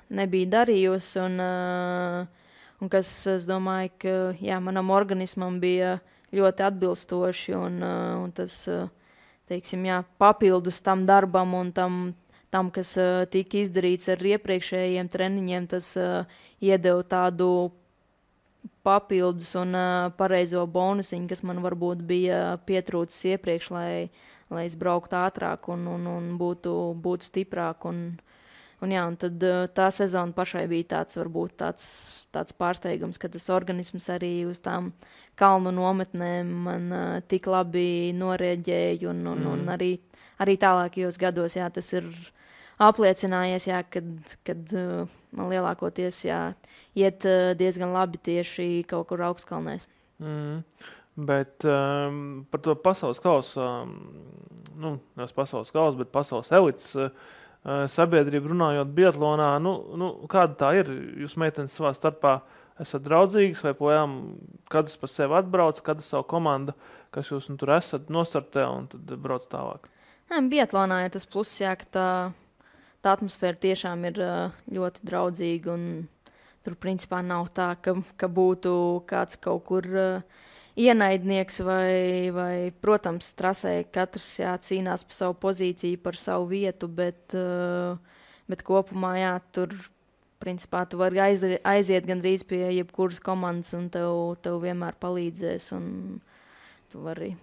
darījusi, un kas, es domāju, ka manam organismam bija ļoti atbilstoši, un tas, teiksim, papildus tam darbam un tam, kas tika izdarīts ar iepriekšējiem treniņiem, tas iedeva tādu papildus un pareizo bonusiņu, kas man varbūt bija pietrūcis iepriekš, lai es brauktu ātrāk un būtu stiprāk. Un Un tad tā sezona pašai bija varbūt tāds pārsteigums, ka tas organisms arī uz tām kalnu nometnēm man tik labi norēģēja. Un arī tālākajos gados tas ir apliecinājies, kad man lielākoties iet diezgan labi tieši kaut kur augstkalnēs. Bet par to pasaules kausu, nevis pasaules kausu, bet pasaules elites sabiedrību runājot biatlonā, kāda tā ir? Jūs meitenes savā starpā esat draudzīgas vai projām kādas par sevi atbrauc, kādas savu komandu, kas jūs tur esat nostartē un tad brauc tālāk? Biatlonā ir tas pluss, ka tā atmosfēra tiešām ir ļoti draudzīga un tur principā nav tā, ka būtu kāds kaut kur ienaidnieks vai, protams, trasē katrs cīnās par savu pozīciju, par savu vietu, bet kopumā, tur, principā, tu vari aiziet gandrīz pie jebkuras komandas un tev vienmēr palīdzēs. Un tu vari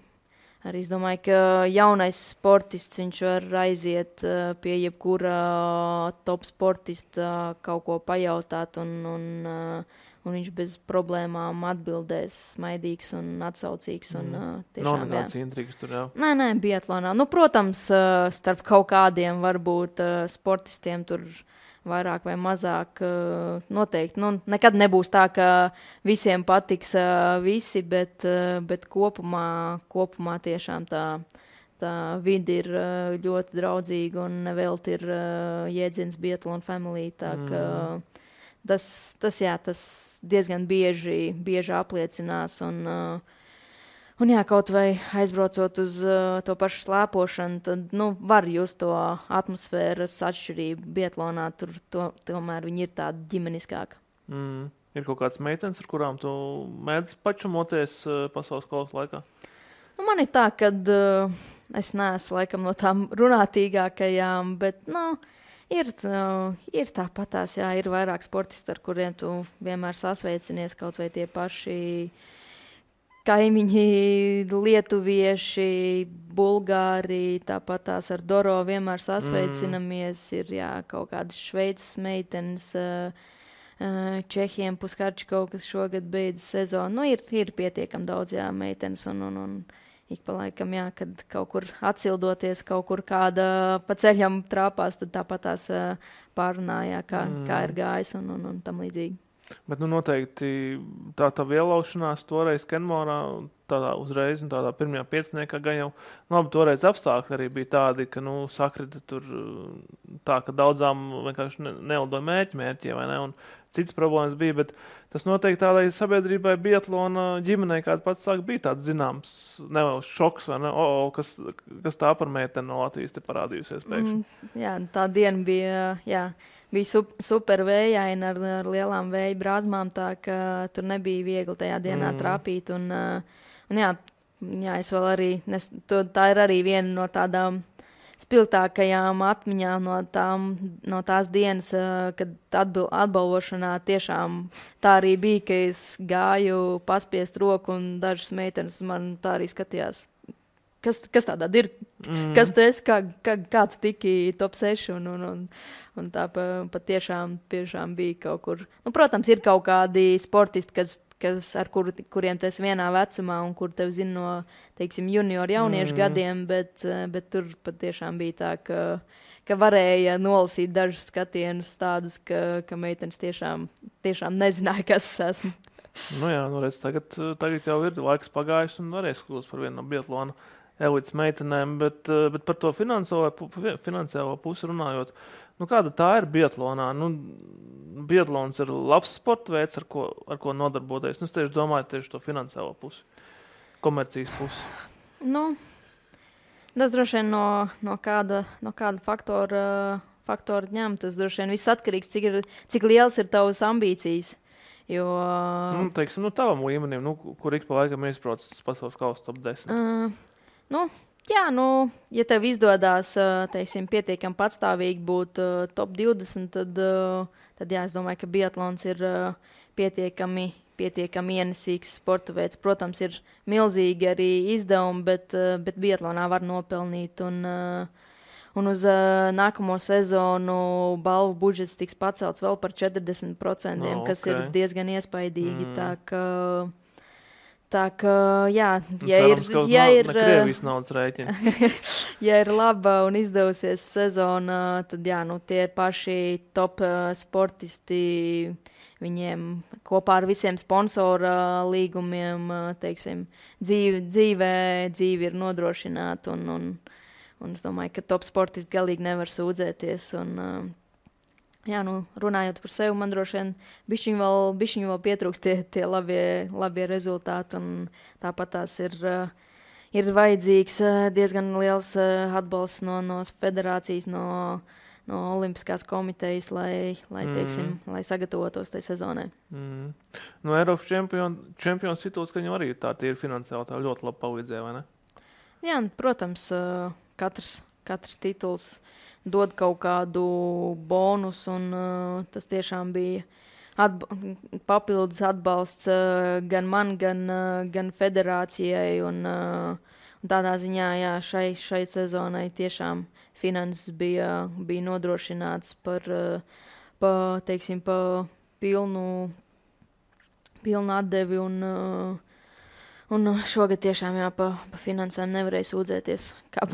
arī, es domāju, ka jaunais sportists, viņš var aiziet pie jebkura top sportista kaut ko pajautāt un viņš bez problēmām atbildēs, smaidīgs un atsaucīgs. Nav nekāds intrigas tur, jā? Nē, biatlonā. Protams, starp kaut kādiem varbūt sportistiem tur vairāk vai mazāk noteikti. Nekad nebūs tā, ka visiem patiks visi, bet kopumā tiešām tā vide ir ļoti draudzīga un nevelti ir jēdziens Biathlon Family. Tā ka tas diezgan bieži apliecinās. Un kaut vai aizbraucot uz to pašu slēpošanu, tad var just to atmosfēras atšķirību. Biatlonā tur tomēr viņi ir tādi ģimeniskāki. Ir kaut kāds meitenes, ar kurām tu mēdz pačumoties pasaules kausa laikā? Man ir tā, ka es neesmu laikam no tām runātīgākajām, bet ir tāpatās, ir vairāk sportisti, ar kuriem tu vienmēr sasveicinies, kaut vai tie paši kaimiņi, lietuvieši, bulgāri, tāpatās ar Doro vienmēr sasveicinamies. Ir kaut kādas Šveices meitenes, Čehiem Puskarčiko, kas šogad beidz sezonu. Ir pietiekami daudz meitenes un ik pa laikam, kad kaut kur atsildoties, kaut kur kāda pa ceļam trāpās, tad tāpatās pārunā, kā ir gājis un tam līdzīgi. Bet noteikti tā ielaušanās toreiz Kenmorā, tādā uzreiz un tādā pirmajā pieciniekā gan jau, labi, toreiz apstākļi arī bija tādi, ka, sakrita tur tā, ka daudzām vienkārši nelidoja mērķi, vai ne, un citas problēmas bija, bet tas noteikti tādai sabiedrībai biatlona ģimenei, kāda pats sāk, bija tāds zināms, nevēl šoks, vai ne, kas tā par meiteni no Latvijas te parādījusies pēkšņi. Tā diena bija, bija super vējaina ar lielām vēja brāzmām, tā ka tur nebija viegli tajā dienā trāpīt. Un es vēl arī, tā ir arī viena no tādām spilgtākajām atmiņām no tās dienas, kad atbalvošanā tiešām tā arī bija, ka es gāju paspiest roku un dažas meitenes man tā arī skatījās. Kas tādā ir? Kas tu esi? Kā tu tiki top 6? Un tā patiešām bija kaut kur. Protams, ir kaut kādi sportisti, ar kuriem tu esi vienā vecumā un kur tev zina no, teiksim, junioru jauniešu gadiem, bet tur patiešām bija tā, ka varēja nolasīt dažus skatienus tādus, ka meitenes tiešām nezināja, kas es esmu. Redz, tagad jau ir laiks pagājis un varēs kļūst par vienu no biatlona elites meitenēm, bet par to finansiālo pusi runājot, kāda tā ir biatlonā? Biatlons ir labs sporta veids, ar ko nodarboties. Es tieši domāju tieši to finansiālo pusi, komercijas pusi. Tas droši vien no kāda faktora ņem. Tas droši vien viss atkarīgs, cik liels ir tavas ambīcijas. Jo, teiksim, tavam līmenim, kur ik pa laikam iesprauc pasaules kausa top 10. Ja tev izdodās, teiksim, pietiekami patstāvīgi būt top 20, tad es domāju, ka biatlons ir pietiekami ienesīgs sporta veids. Protams, ir milzīgi arī izdevumi, bet biatlonā var nopelnīt. Un uz nākamo sezonu balvu budžets tiks pacelts vēl par 40%, kas ir diezgan iespaidīgi. Tā kā, jā, ja ir Krievijas naudas rēķina. Ja ir laba un izdevusies sezona, tad jā, tie paši top sportisti, viņiem kopā ar visiem sponsora līgumiem, teiksim, dzīve ir nodrošināta un es domāju, ka top sportisti galīgi nevar sūdzēties jā, runājot par sevi, man droši vien bišķiņ vēl pietrūkst tie labie rezultāti, un tāpat tās ir vajadzīgs diezgan liels atbalsts no federācijas, no Olimpiskās komitejas, lai sagatavotos tai sezonai. No Eiropas čempions tituls, ka viņam arī tā ir finansiāli tā ļoti labi palīdzēja, vai ne? Jā, protams, katrs tituls dod kaut kādu bonus, un tas tiešām bija papildus atbalsts gan man, gan federācijai, un tādā ziņā, jā, šai sezonai tiešām finanses bija nodrošināts par pilnu atdevi, un šogad tiešām, jā, pa finansēm nevarēja sūdzēties, kā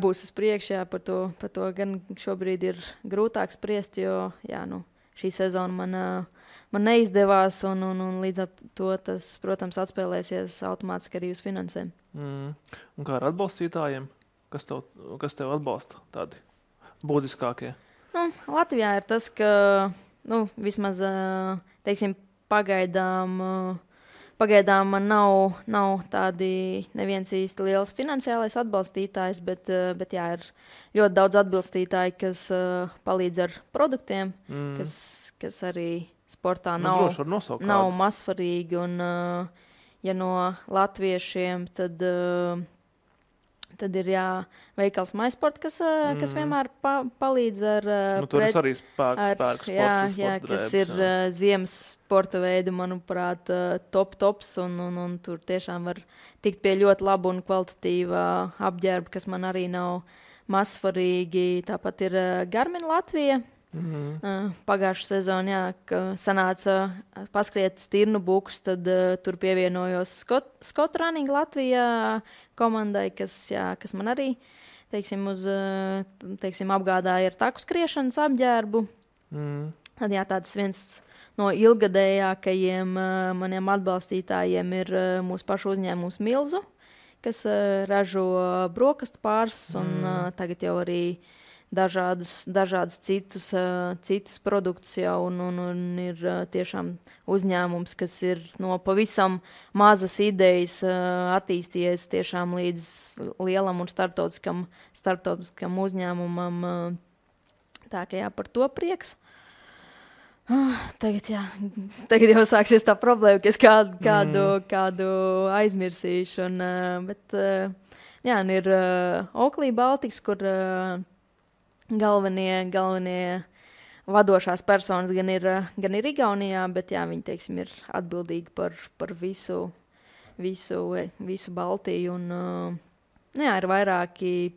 būs uz priekšu, par to gan šobrīd ir grūtāk spriest, jo jā, šī sezona man neizdevās, un līdz ar to tas, protams, atspēlēsies automātiski arī uz finansēm. Un kā ar atbalstītājiem? Kas tev atbalsta tādi būtiskākie? Latvijā ir tas, ka vismaz, teiksim, Pagaidām man nav tādi neviens īsti liels finansiālais atbalstītājs, bet jā, ir ļoti daudz atbalstītāji, kas palīdz ar produktiem, kas arī sportā nav mazsvarīgi. Un, ja no latviešiem, tad ir veikals MySport, kas vienmēr palīdz ar tur arī spēks kas ir ziemas sporta veidi, manuprāt, tops, un tur tiešām var tikt pie ļoti laba un kvalitatīva apģērba, kas man arī nav mazsvarīgi. Tāpat ir Garmin Latvija. Pagājušā sezonā, jā, ka sanāca paskriet stirnu bukus, tad tur pievienojos Scott Running Latvijā komandai, kas man arī, apgādāja ar taku skriešanas apģērbu. Tad jā, tāds viens no ilgadējākajiem maniem atbalstītājiem ir mūsu pašu uzņēmums Milzu, kas ražo brokastu pārs, un tagad jau arī dažādus citus produktus jau, un ir tiešām uzņēmums, kas ir no pavisam mazas idejas attīstījies tiešām līdz lielam un starptautiskam uzņēmumam. Tā kā jā, par to prieks. Tagad jau sāksies tā problēma, ka es kādu aizmirsīšu. Bet jā, un ir Oakley Baltics, kur galvenie vadošās personas gan ir Igaunijā, bet jā, viņi, teiksim, ir atbildīgi par visu Baltiju. Un jā, ir vairāki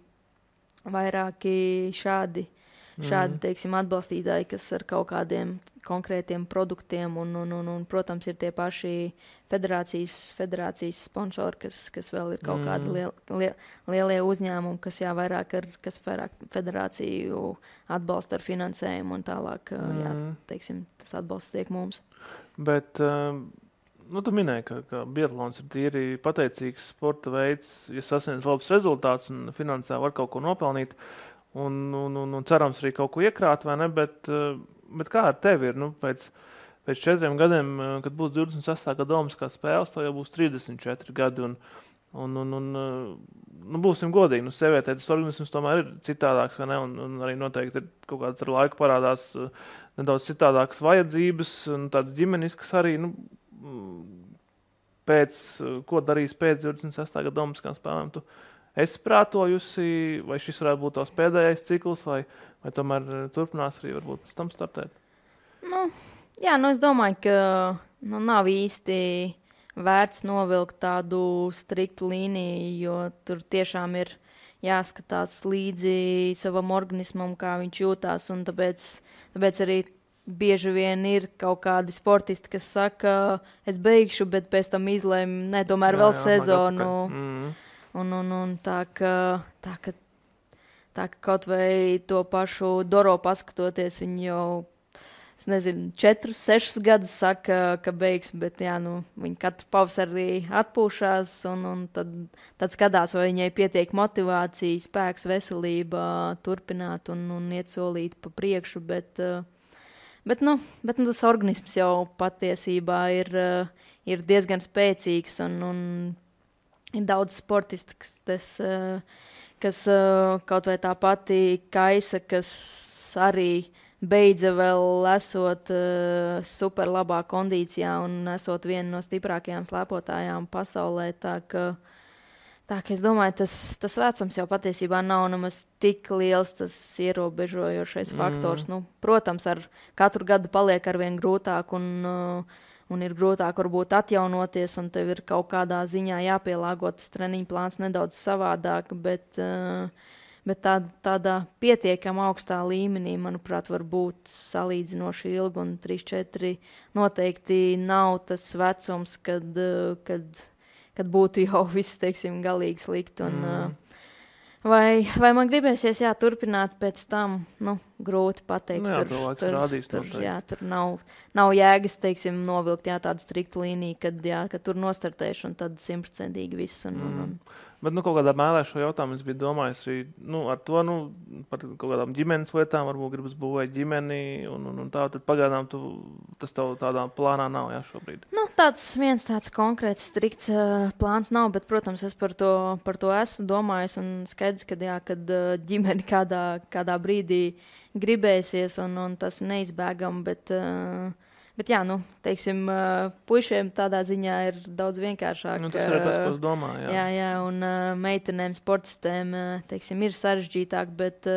šādi, teiksim, atbalstītāji, kas ar kaut kādiem konkrētiem produktiem, un protams, ir tie paši federācijas sponsori, kas vēl ir kaut kādi lielie uzņēmumi, kas vairāk federāciju atbalsta ar finansējumu, un tālāk, jā, teiksim, tas atbalsts tiek mums. Bet, tu minēji, ka biatlons ir tīri pateicīgs sporta veids, ja sasniedz labs rezultāts un finansē var kaut ko nopelnīt, un cerams arī kaut ko iekrāt, vai ne, bet kā ar tevi ir, pēc 4 gadiem, kad būs 28. gada Olimpiskās spēles, to jau būs 34 gadi, un būsim godīgi, sievietē tas organisms tomēr ir citādāks, vai ne, un arī noteikti ir kaut kāds ar laiku parādās nedaudz citādākas vajadzības, un tādas ģimeniskas arī, ko darīs pēc 28. gada Olimpiskām spēlēm, tu esi prātojusi, vai šis varētu būt tavs pēdējais cikls, vai tomēr turpinās arī varbūt pēc tam startēt? Jā, es domāju, ka nav īsti vērts novilkt tādu striktu līniju, jo tur tiešām ir jāskatās līdzi savam organismam, kā viņš jūtās. Un tāpēc arī bieži vien ir kaut kādi sportisti, kas saka, es beigšu, bet pēc tam izlēmu, ne, tomēr vēl sezonu. Un tā, ka kaut vai to pašu Doro paskatoties, viņi jau, es nezinu, 4, 6 gadus saka, ka beigs, bet jā, viņi katru pavasarī atpūšās un tad skatās, vai viņai pietiek motivācija, spēks, veselība turpināt un iet solīt pa priekšu, bet tas organisms jau patiesībā ir diezgan spēcīgs un ir daudz sportisti, kas kaut vai tā pati Kaisa, kas arī beidza vēl esot super labā kondīcijā un esot viena no stiprākajām slēpotājām pasaulē. Tā ka es domāju, tas vecums jau patiesībā nav nemaz tik liels tas ierobežojošais faktors. Protams, ar katru gadu paliek arvien grūtāk un ir grūtāk varbūt atjaunoties, un tev ir kaut kādā ziņā jāpielāgo tas treniņu plāns nedaudz savādāk, bet tādā pietiekami augstā līmenī, manuprāt, var būt salīdzinoši ilgi, un 3-4 noteikti nav tas vecums, kad būtu jau viss, teiksim, galīgi slikti. Vai man gribēsies turpināt pēc tam, grūti pateikt. Tur nav jēgas, teiksim, novilkt tādu striktu līniju, kad tur nostartēšu un tad 100% viss. Bet kaut kādā mēlē šo jautājumu es biju domājis arī ar to, par kaut kādām ģimenes lietām, varbūt gribas būvēt ģimeni un tā, tad pagaidām tas tev tādā plānā nav, šobrīd. Viens tāds konkrēts, strikts plāns nav, bet, protams, es par to esmu domājis un skaidrs, kad ģimeni kādā brīdī gribēsies un tas neizbēgam, bet jā, teiksim, puišiem tādā ziņā ir daudz vienkāršāk. Tas ir tas, ko es domāju. Jā, un meitenēm, sportistēm, teiksim, ir sarežģītāk, bet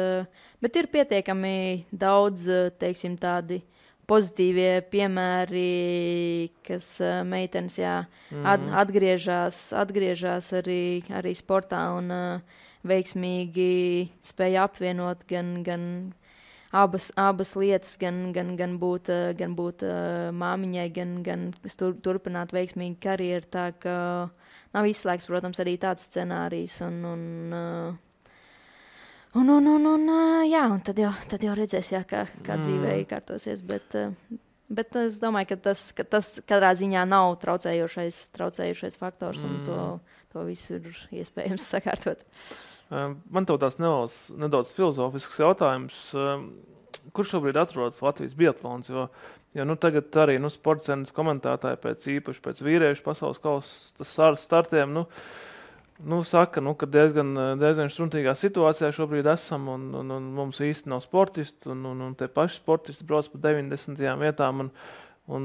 ir pietiekami daudz, teiksim, tādi pozitīvie piemēri, kas meitenes, atgriežas arī sportā un veiksmīgi spēja apvienot gan abas lietas, gan būt māmiņai, gan turpināt veiksmīgu karjeru. Tā ka nav izslēgts, protams, arī tāds scenārijs. Un tad jau redzēs, kā dzīvē iekārtosies. Bet es domāju, ka tas katrā ziņā nav traucējošais faktors, un to visu ir iespējams sakārtot. Man tev tās nedaudz filozofisks jautājums. Kur šobrīd atrodas Latvijas biatlons? Jo tagad arī sportcenas komentētāji īpaši pēc vīriešu pasaules kausa startiem saka, ka diezgan štruntīgā situācijā šobrīd esam un mums īsti nav sportisti un tie paši sportisti brauc pa 90. vietām un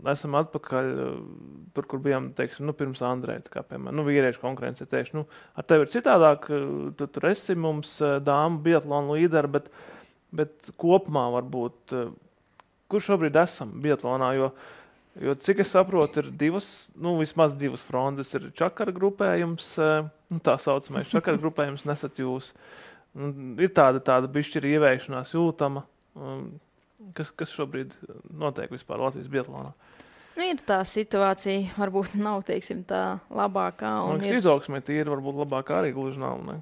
esam atpakaļ tur, kur bijām, teiksim, pirms Andreja, kā piemēram, vīriešu konkurence tieši. Ar tevi ir citādāk, tu tur esi mums dāmu biatlonu līderi, bet kopumā varbūt, kur šobrīd esam biatlonā, jo cik es saprotu, ir vismaz divas frontes, ir čakara grupējums, tā saucamais čakara grupējums, nesat jūs. Ir tāda bišķi ir ievēršanās jūtama, kas šobrīd notiek vispār Latvijas biatlonā. Ir tā situācija, varbūt nav, teiksim, tā labākā. Izaugsmē tīri varbūt labākā arī gluži nav, ne?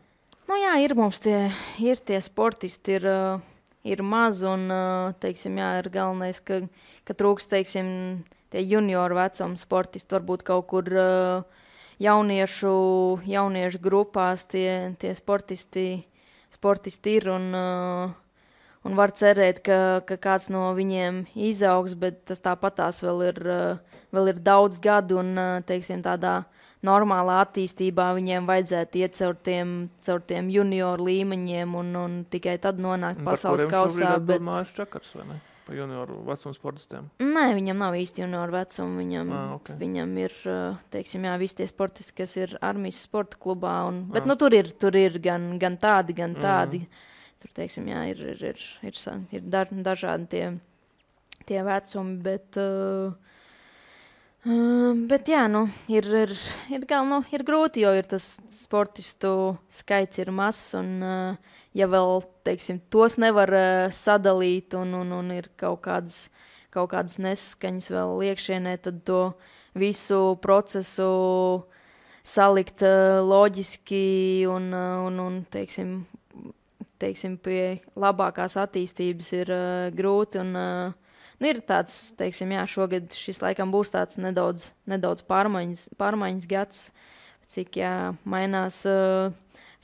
Ir mums tie sportisti, ir maz un, teiksim, ir galvenais, ka trūks, teiksim, tie junioru vecuma sportisti, varbūt kaut kur jauniešu grupās tie sportisti ir un var cerēt, ka kāds no viņiem izaugs, bet tas tāpatās vēl ir daudz gadu un, teiksim, tādā normālā attīstībā viņiem vajadzētu iet caur tiem junioru līmeņiem un tikai tad nonākt pasaules kausā. Bet Māris Čakars, vai ne? Pa junioru vecumu sportistiem? Nē, viņam nav īsti junioru vecumu. Viņam ir, teiksim, visi tie sportisti, kas ir armijas sporta klubā. Bet tur ir gan tādi. Tur, teiksim, ir dažādi tie vecumi, Bet jā, ir grūti, jo ir tas sportistu skaits ir mazs, un ja vēl, teiksim, tos nevar sadalīt, un ir kaut kādas nesaskaņas vēl iekšienē, tad to visu procesu salikt loģiski un teiksim, pie labākās attīstības ir grūti. Ir tāds, teiksim, jā, šogad šis laikam būs tāds nedaudz pārmaiņas gads, cik mainās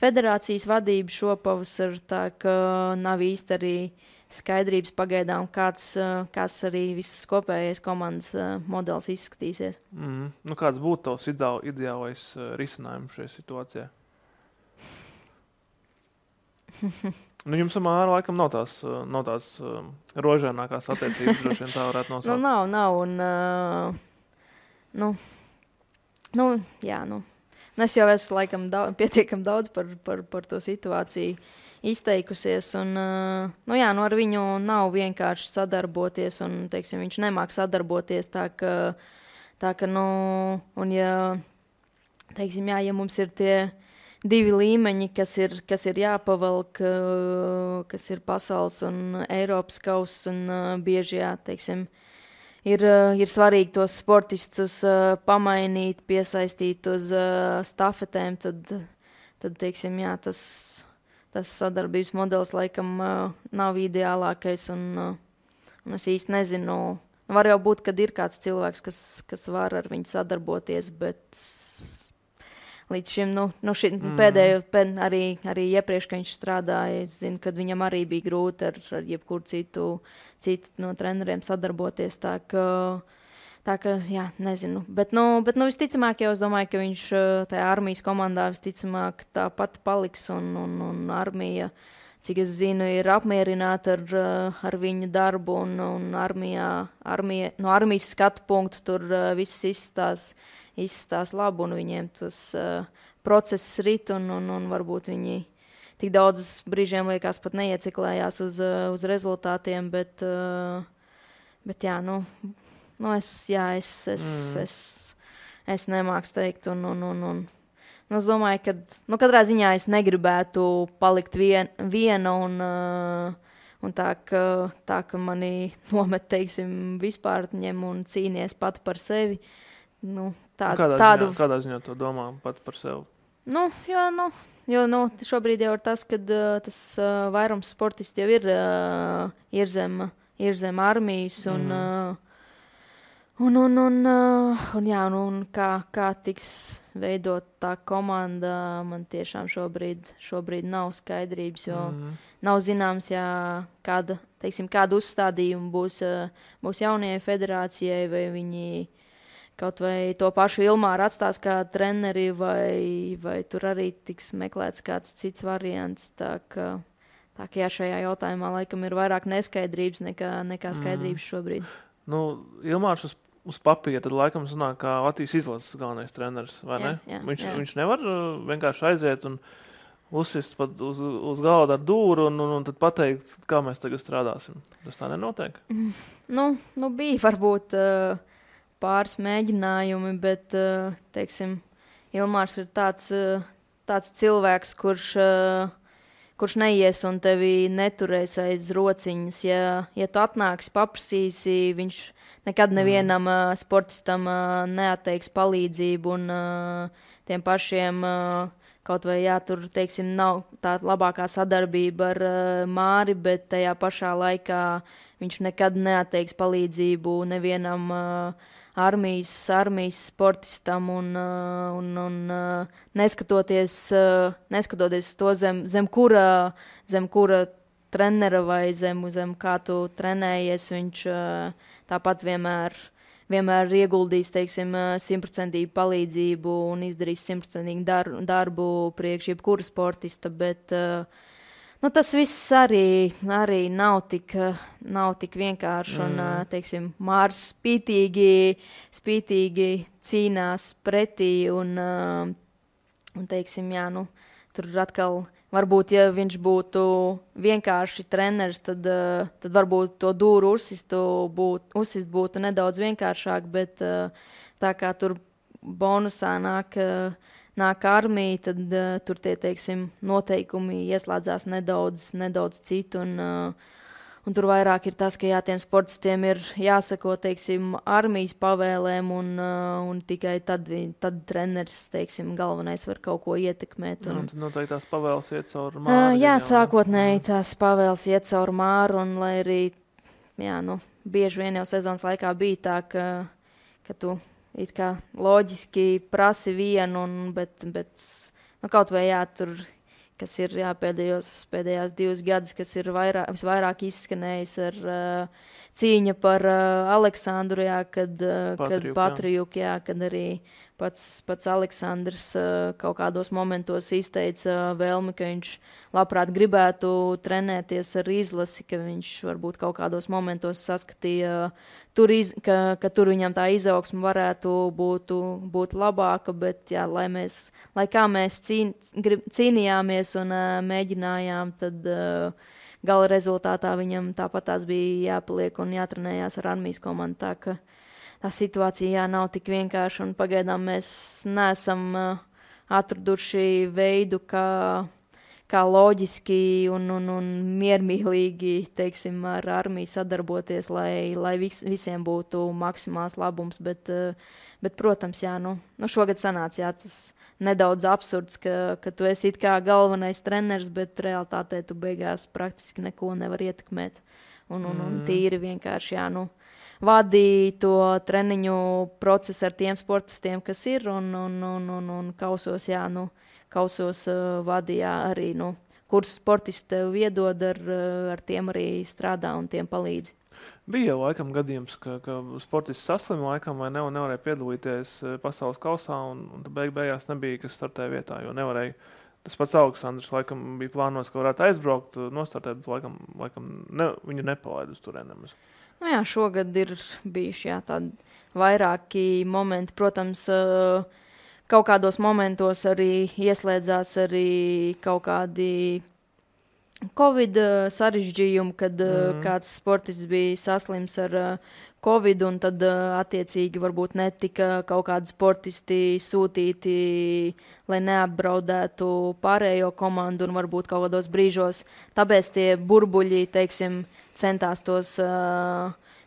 federācijas vadība šopavasar, tā ka nav īsti arī skaidrības pagaidām, kāds arī visas kopējais komandas modelis izskatīsies. Kāds būtu tavs ideālais risinājums šajā situācijā? Jums ar Māru laikam nav tās rožainākās attiecības, droši vien tā varētu nosaukt. Nav, un es jau esmu laikam pietiekam daudz par to situāciju izteikusies, un ar viņu nav vienkārši sadarboties, un, teiksim, viņš nemāk sadarboties, tā ka, un ja mums ir tie divi līmeņi, kas ir jāpavelk, kas ir pasaules un Eiropas kauss, un bieži, teiksim, ir svarīgi tos sportistus pamainīt, piesaistīt uz stafetēm, tad teiksim, tas sadarbības modelis laikam nav ideālākais, un es īsti nezinu. Var jau būt, kad ir kāds cilvēks, kas var ar viņu sadarboties, bet līdz šim, pēdējo, arī iepriekš, kad viņš strādāja, es zinu, kad viņam arī bija grūti ar jebkuru citu no treneriem sadarboties, tā ka, jā, nezinu. Bet visticamāk, jau es domāju, ka viņš tajā armijas komandā visticamāk tāpat paliks, un armija, cik es zinu, ir apmierināta ar viņu darbu, un armija, no armijas skatu punktu tur viss izstās labi, un viņiem tas process rit, un varbūt viņi tik daudz brīžiem liekas pat neieciklējās uz rezultātiem, bet jā, es nemāku teikt, un es domāju, ka katrā ziņā es negribētu palikt viena, un tā, ka mani nomet, teiksim, vispār ņem un cīnies pati par sevi. Kādā ziņā to domā pat par sevi? Jo šobrīd jau ir tas, kad tas vairums sportisti jau ir zem armijas, un kā tiks veidot tā komanda, man tiešām šobrīd nav skaidrības, jo nav zināms, kādu uzstādījumu būs jaunajai federācijai, vai viņi kaut vai to pašu Ilmāru atstās kā treneri, vai tur arī tiks meklēts kāds cits variants. Tā ka šajā jautājumā laikam ir vairāk neskaidrības nekā skaidrības šobrīd. Ilmārs uz papīra tad laikam sanāk kā Latvijas izlases galvenais treneris, vai ne? Jā. Viņš nevar vienkārši aiziet un uzsist pat uz galda ar dūru un tad pateikt, kā mēs tagad strādāsim. Tas tā nenotiek? Bija varbūt pāris mēģinājumi, bet, teiksim, Ilmārs ir tāds cilvēks, kurš neies un tevi neturēs aiz rociņas. Ja tu atnāksi, paprasīsi, viņš nekad nevienam sportistam neatteiks palīdzību, un tiem pašiem kaut vai, tur, teiksim, nav tā labākā sadarbība ar Māri, bet tajā pašā laikā viņš nekad neatteiks palīdzību nevienam armijas sportistam, un neskatoties uz to, zem kura trenera vai zem kā tu trenējies, viņš tāpat vienmēr ieguldīs, teiksim, 100% palīdzību un izdarīs 100% darbu priekš jebkura sportista, bet tas viss arī nav tik vienkārši, un, teiksim, Mārs spītīgi cīnās pretī, un teiksim, tur atkal varbūt, ja viņš būtu vienkārši treneris, tad varbūt to dūru uzsist būtu nedaudz vienkāršāk, bet tā kā tur bonusā nāk armija, tad tur tie, teiksim, noteikumi ieslēdzās nedaudz citu. Un tur vairāk ir tas, ka tiem sportistiem ir jāsako, teiksim, armijas pavēlēm, un tikai tad treneris, teiksim, galvenais var kaut ko ietekmēt. Un tad noteikti tās pavēles iet caur māru. Jā, sākotnēji tās pavēles iet caur māru, un lai arī, bieži vien jau sezonas laikā bija tā, ka tu it kā loģiski prasi vienu, bet kaut vai tur, kas ir pēdējās 2 gadus, kas ir visvairāk izskanējis ar cīņa par Aleksandru, kad Patrijuk, kad arī pats Aleksandrs kaut kādos momentos izteica vēlmi, ka viņš labprāt gribētu trenēties ar izlasi, ka viņš varbūt kaut kādos momentos saskatīja, ka tur viņam tā izaugsme varētu būt labāka, bet lai kā mēs cīnījāmies un mēģinājām, tad gala rezultātā viņam tāpat tās bija jāpaliek un jātrenējās ar armijas komandu. Tā ka tā situācija nav tik vienkārša, un pagaidām mēs neesam atraduši veidu, kā loģiski un miermīlīgi, teiksim, ar armiju sadarboties, lai visiem būtu maksimāls labums. Bet protams, šogad sanāca tas nedaudz absurds, ka tu esi it kā galvenais treneris, bet realitātē tu beigās praktiski neko nevar ietekmēt. Un tīri vienkārši, vadīja to treniņu procesu ar tiem sportistiem, kas ir, un kausos, kausos vadīja arī, kurus sportisti tev iedod, ar tiem arī strādā un tiem palīdz. Bija jau laikam gadījums, ka sportists saslima laikam vai nevarēja piedalīties pasaules kausā, un beigās nebija, kas startēja vietā, jo nevarēja. Tas pats Aleksandrs laikam bija plānos, ka varētu aizbraukt, nostartēt, bet laikam viņu nepalaid uz turienes. Šogad ir bijuši tādi vairāki momenti. Protams, kaut kādos momentos arī ieslēdzās arī kaut kādi Covid sarežģījumi, kad kāds sportists bija saslims ar Covid, un tad attiecīgi varbūt netika kaut kādi sportisti sūtīti, lai neapbraudētu pārējo komandu, un varbūt kaut kādos brīžos. Tāpēc tie burbuļi, teiksim, centās tos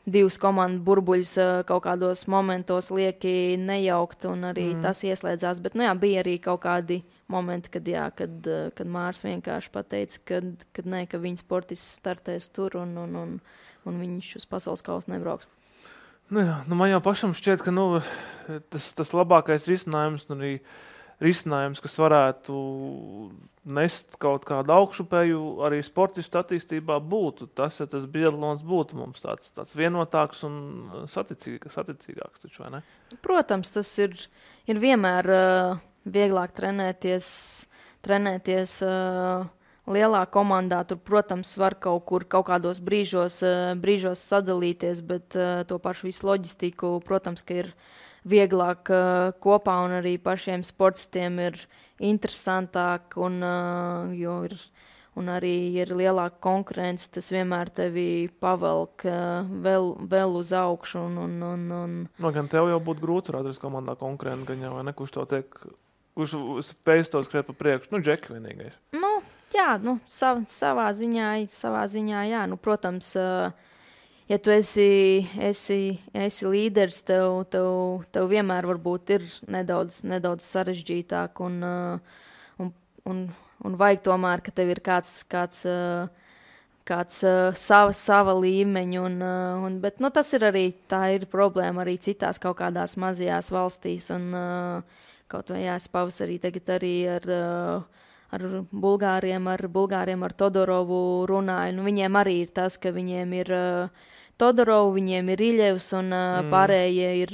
2 komandu burbuļus kaut kādos momentos lieki nejaukt, un arī tas ieslēdzās. Bet bija arī kaut kādi momenti, kad Mārs vienkārši pateica, ka viņa sportists startēs tur, un viņš uz pasaules kausu nebrauks. Man jau pašam šķiet, ka tas labākais risinājums, un arī risinājums, kas varētu nest kaut kādu augšupēju arī sportistu attīstībā būtu. Tas biatlons būtu mums tāds vienotāks un saticīgāks, taču, vai ne? Protams, tas ir vienmēr vieglāk trenēties lielā komandā. Tur, protams, var kaut kādos brīžos sadalīties, bet to pašu visu loģistiku, protams, ka ir vieglāk kopā, un arī pašiem sportistiem ir interesantāk, un arī ir lielāka konkurence. Tas vienmēr tevi pavelk vēl uz augšu. Gan tev jau būtu grūti atrast komandā konkurentu, gan jau, vai ne, kurš spējas to skriet pa priekšu? Džeki vienīgais. Savā ziņā, jā. Protams, ja tu esi līderis, tev vienmēr varbūt ir nedaudz sarežģītāk, un vajag tomēr, ka tev ir kāds sava līmeņa, bet tas ir arī, tā ir problēma arī citās kaut kādās mazajās valstīs, un kaut vai es pavasarī tagad arī ar Bulgāriem, ar Todorovu runāju. Viņiem arī ir tas, ka viņiem ir Todorovu, viņiem ir Iļevs, un pārējie ir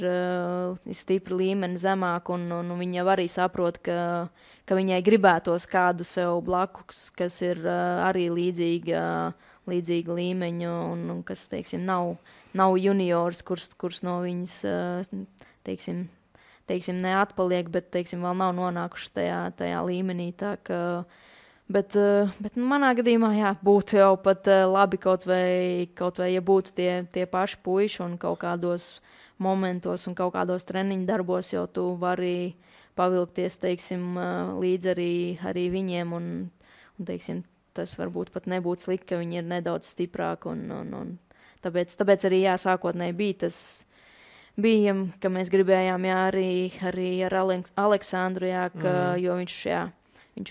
stipri līmeni zemāk, un viņi jau arī saprot, ka viņai gribētos kādu sev blakus, kas ir arī līdzīga līmeņa, un kas, teiksim, nav juniors, kurš no viņas, teiksim, neatpaliek, bet, teiksim, vēl nav nonākuši tajā līmenī. Tā ka Bet manā gadījumā, jā, būtu jau pat labi kaut vai, ja būtu tie paši puiši un kaut kādos momentos un kaut kādos treniņu darbos jau tu vari pavilkties, teiksim, līdz arī viņiem un teiksim, tas varbūt pat nebūtu slikti, ka viņi ir nedaudz stiprāki un tāpēc arī, jā, sākotnēji bija, ka mēs gribējām, jā, arī ar Aleksandru, jā, jo viņš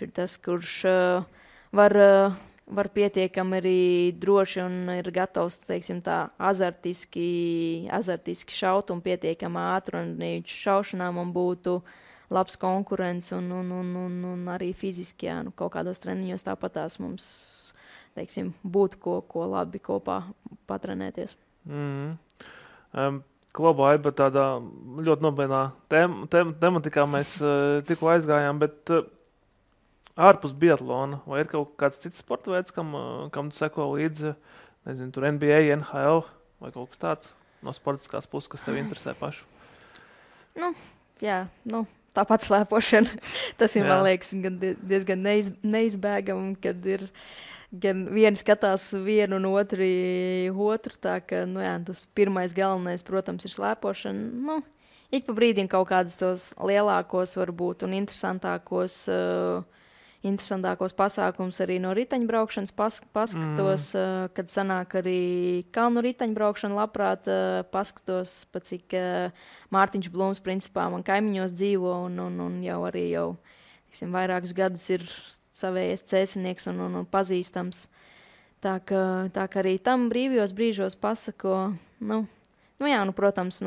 ir tas, kurš var pietiekami arī droši un ir gatavs, teiksim, tā azartiski šaut un pietiekami ātri, un viņš šaušanā man būtu labs konkurents un arī fiziski, jā, kaut kādos treniņos tāpatās mums, teiksim, būtu ko labi kopā patrenēties. Klubā ir tādā ļoti nopietnā tematikā mēs tikko aizgājām, bet ārpus biatlona, vai ir kaut kāds cits sporta veids, kam tu seko līdzi, nezinu, tur NBA, NHL vai kaut kas tāds no sportiskās puses, kas tev interesē pašu? Tāpat slēpošana. Tas ir, man liekas, diezgan neizbēgami, kad ir gan vieni skatās vienu un otru, tā ka, tas pirmais galvenais, protams, ir slēpošana. Ik pa brīdim kaut kādus tos lielākos varbūt un interesantākos pasākums arī no riteņbraukšanas paskatos, kad sanāk arī kalnu riteņbraukšana, labprāt paskatos, pa cik Mārtiņš Blūms principā man kaimiņos dzīvo un jau tiksim, vairākus gadus ir savējais cēsinieks un pazīstams. Tā ka arī tam brīvajos brīžos pasako, protams,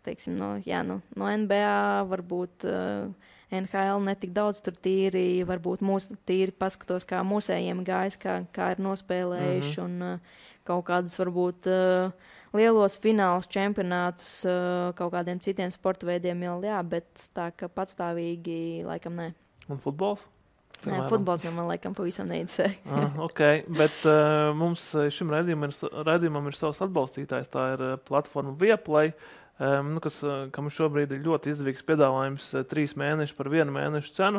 teiksim, no NBA varbūt NHL netik daudz tur tīri, varbūt tīri paskatos, kā mūsējiem gājis, kā ir nospēlējuši un kaut kādus varbūt lielos finālus čempionātus kaut kādiem citiem sporta veidiem jau, jā, bet tā, ka patstāvīgi laikam nē. Un futbols? Nē, futbols jau man laikam pavisam neinteresē. Ok, bet mums šim raidījumam ir savs atbalstītājs, tā ir platforma Viaplay, kam šobrīd ir ļoti izdevīgs piedāvājums 3 mēneši par 1 mēnešu cenu,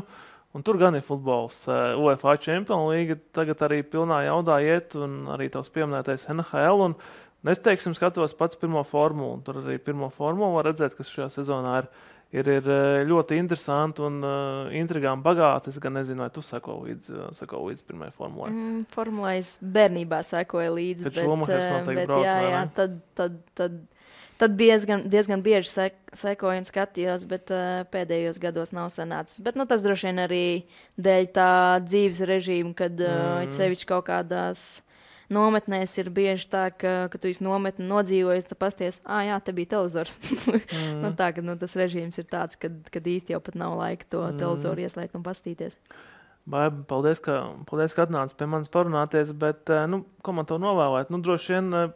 un tur gan ir futbols. UEFA Champions League tagad arī pilnā jaudā iet, un arī tavs pieminētais NHL, un es, teiksim, skatos pats pirmo formulu, un tur arī pirmo formulu var redzēt, kas šajā sezonā ir ļoti interesanti un intrigām bagāti. Es gan nezinu, vai tu seko līdz pirmajai formulai. Formulai es bērnībā sekoju līdzi, tad diezgan bieži sekoju un skatījos, bet pēdējos gados nav sanācis. Bet tas droši vien arī dēļ tā dzīves režīma, kad sevišķi kaut kādās nometnēs ir bieži tā, ka tu esi nometni nodzīvojies, tu pasties, jā, te bija televizors. Tas režīms ir tāds, kad īsti jau pat nav laika to televizoru ieslēgt un pastīties. Baiba, paldies, ka atnāci pie manis parunāties, bet, ko man tev novēlēt? Droši vien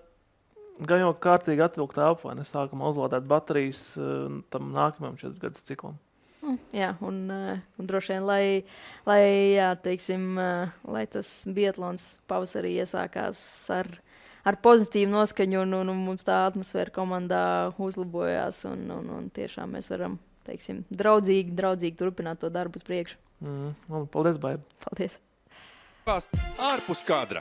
gan jau kārtīgi atvilkt elpu, vai ne sākumā uzlādēt baterijas tam nākamajam 4 gadus ciklam. Jā, un droši vien, lai tas biatlons pavasarī iesākās ar pozitīvu noskaņu un mums tā atmosfēra komandā uzlabojās un tiešām mēs varam, teiksim, draudzīgi turpināt to darbu uz priekšu. Paldies, Baiba. Paldies. Ārpus kadra.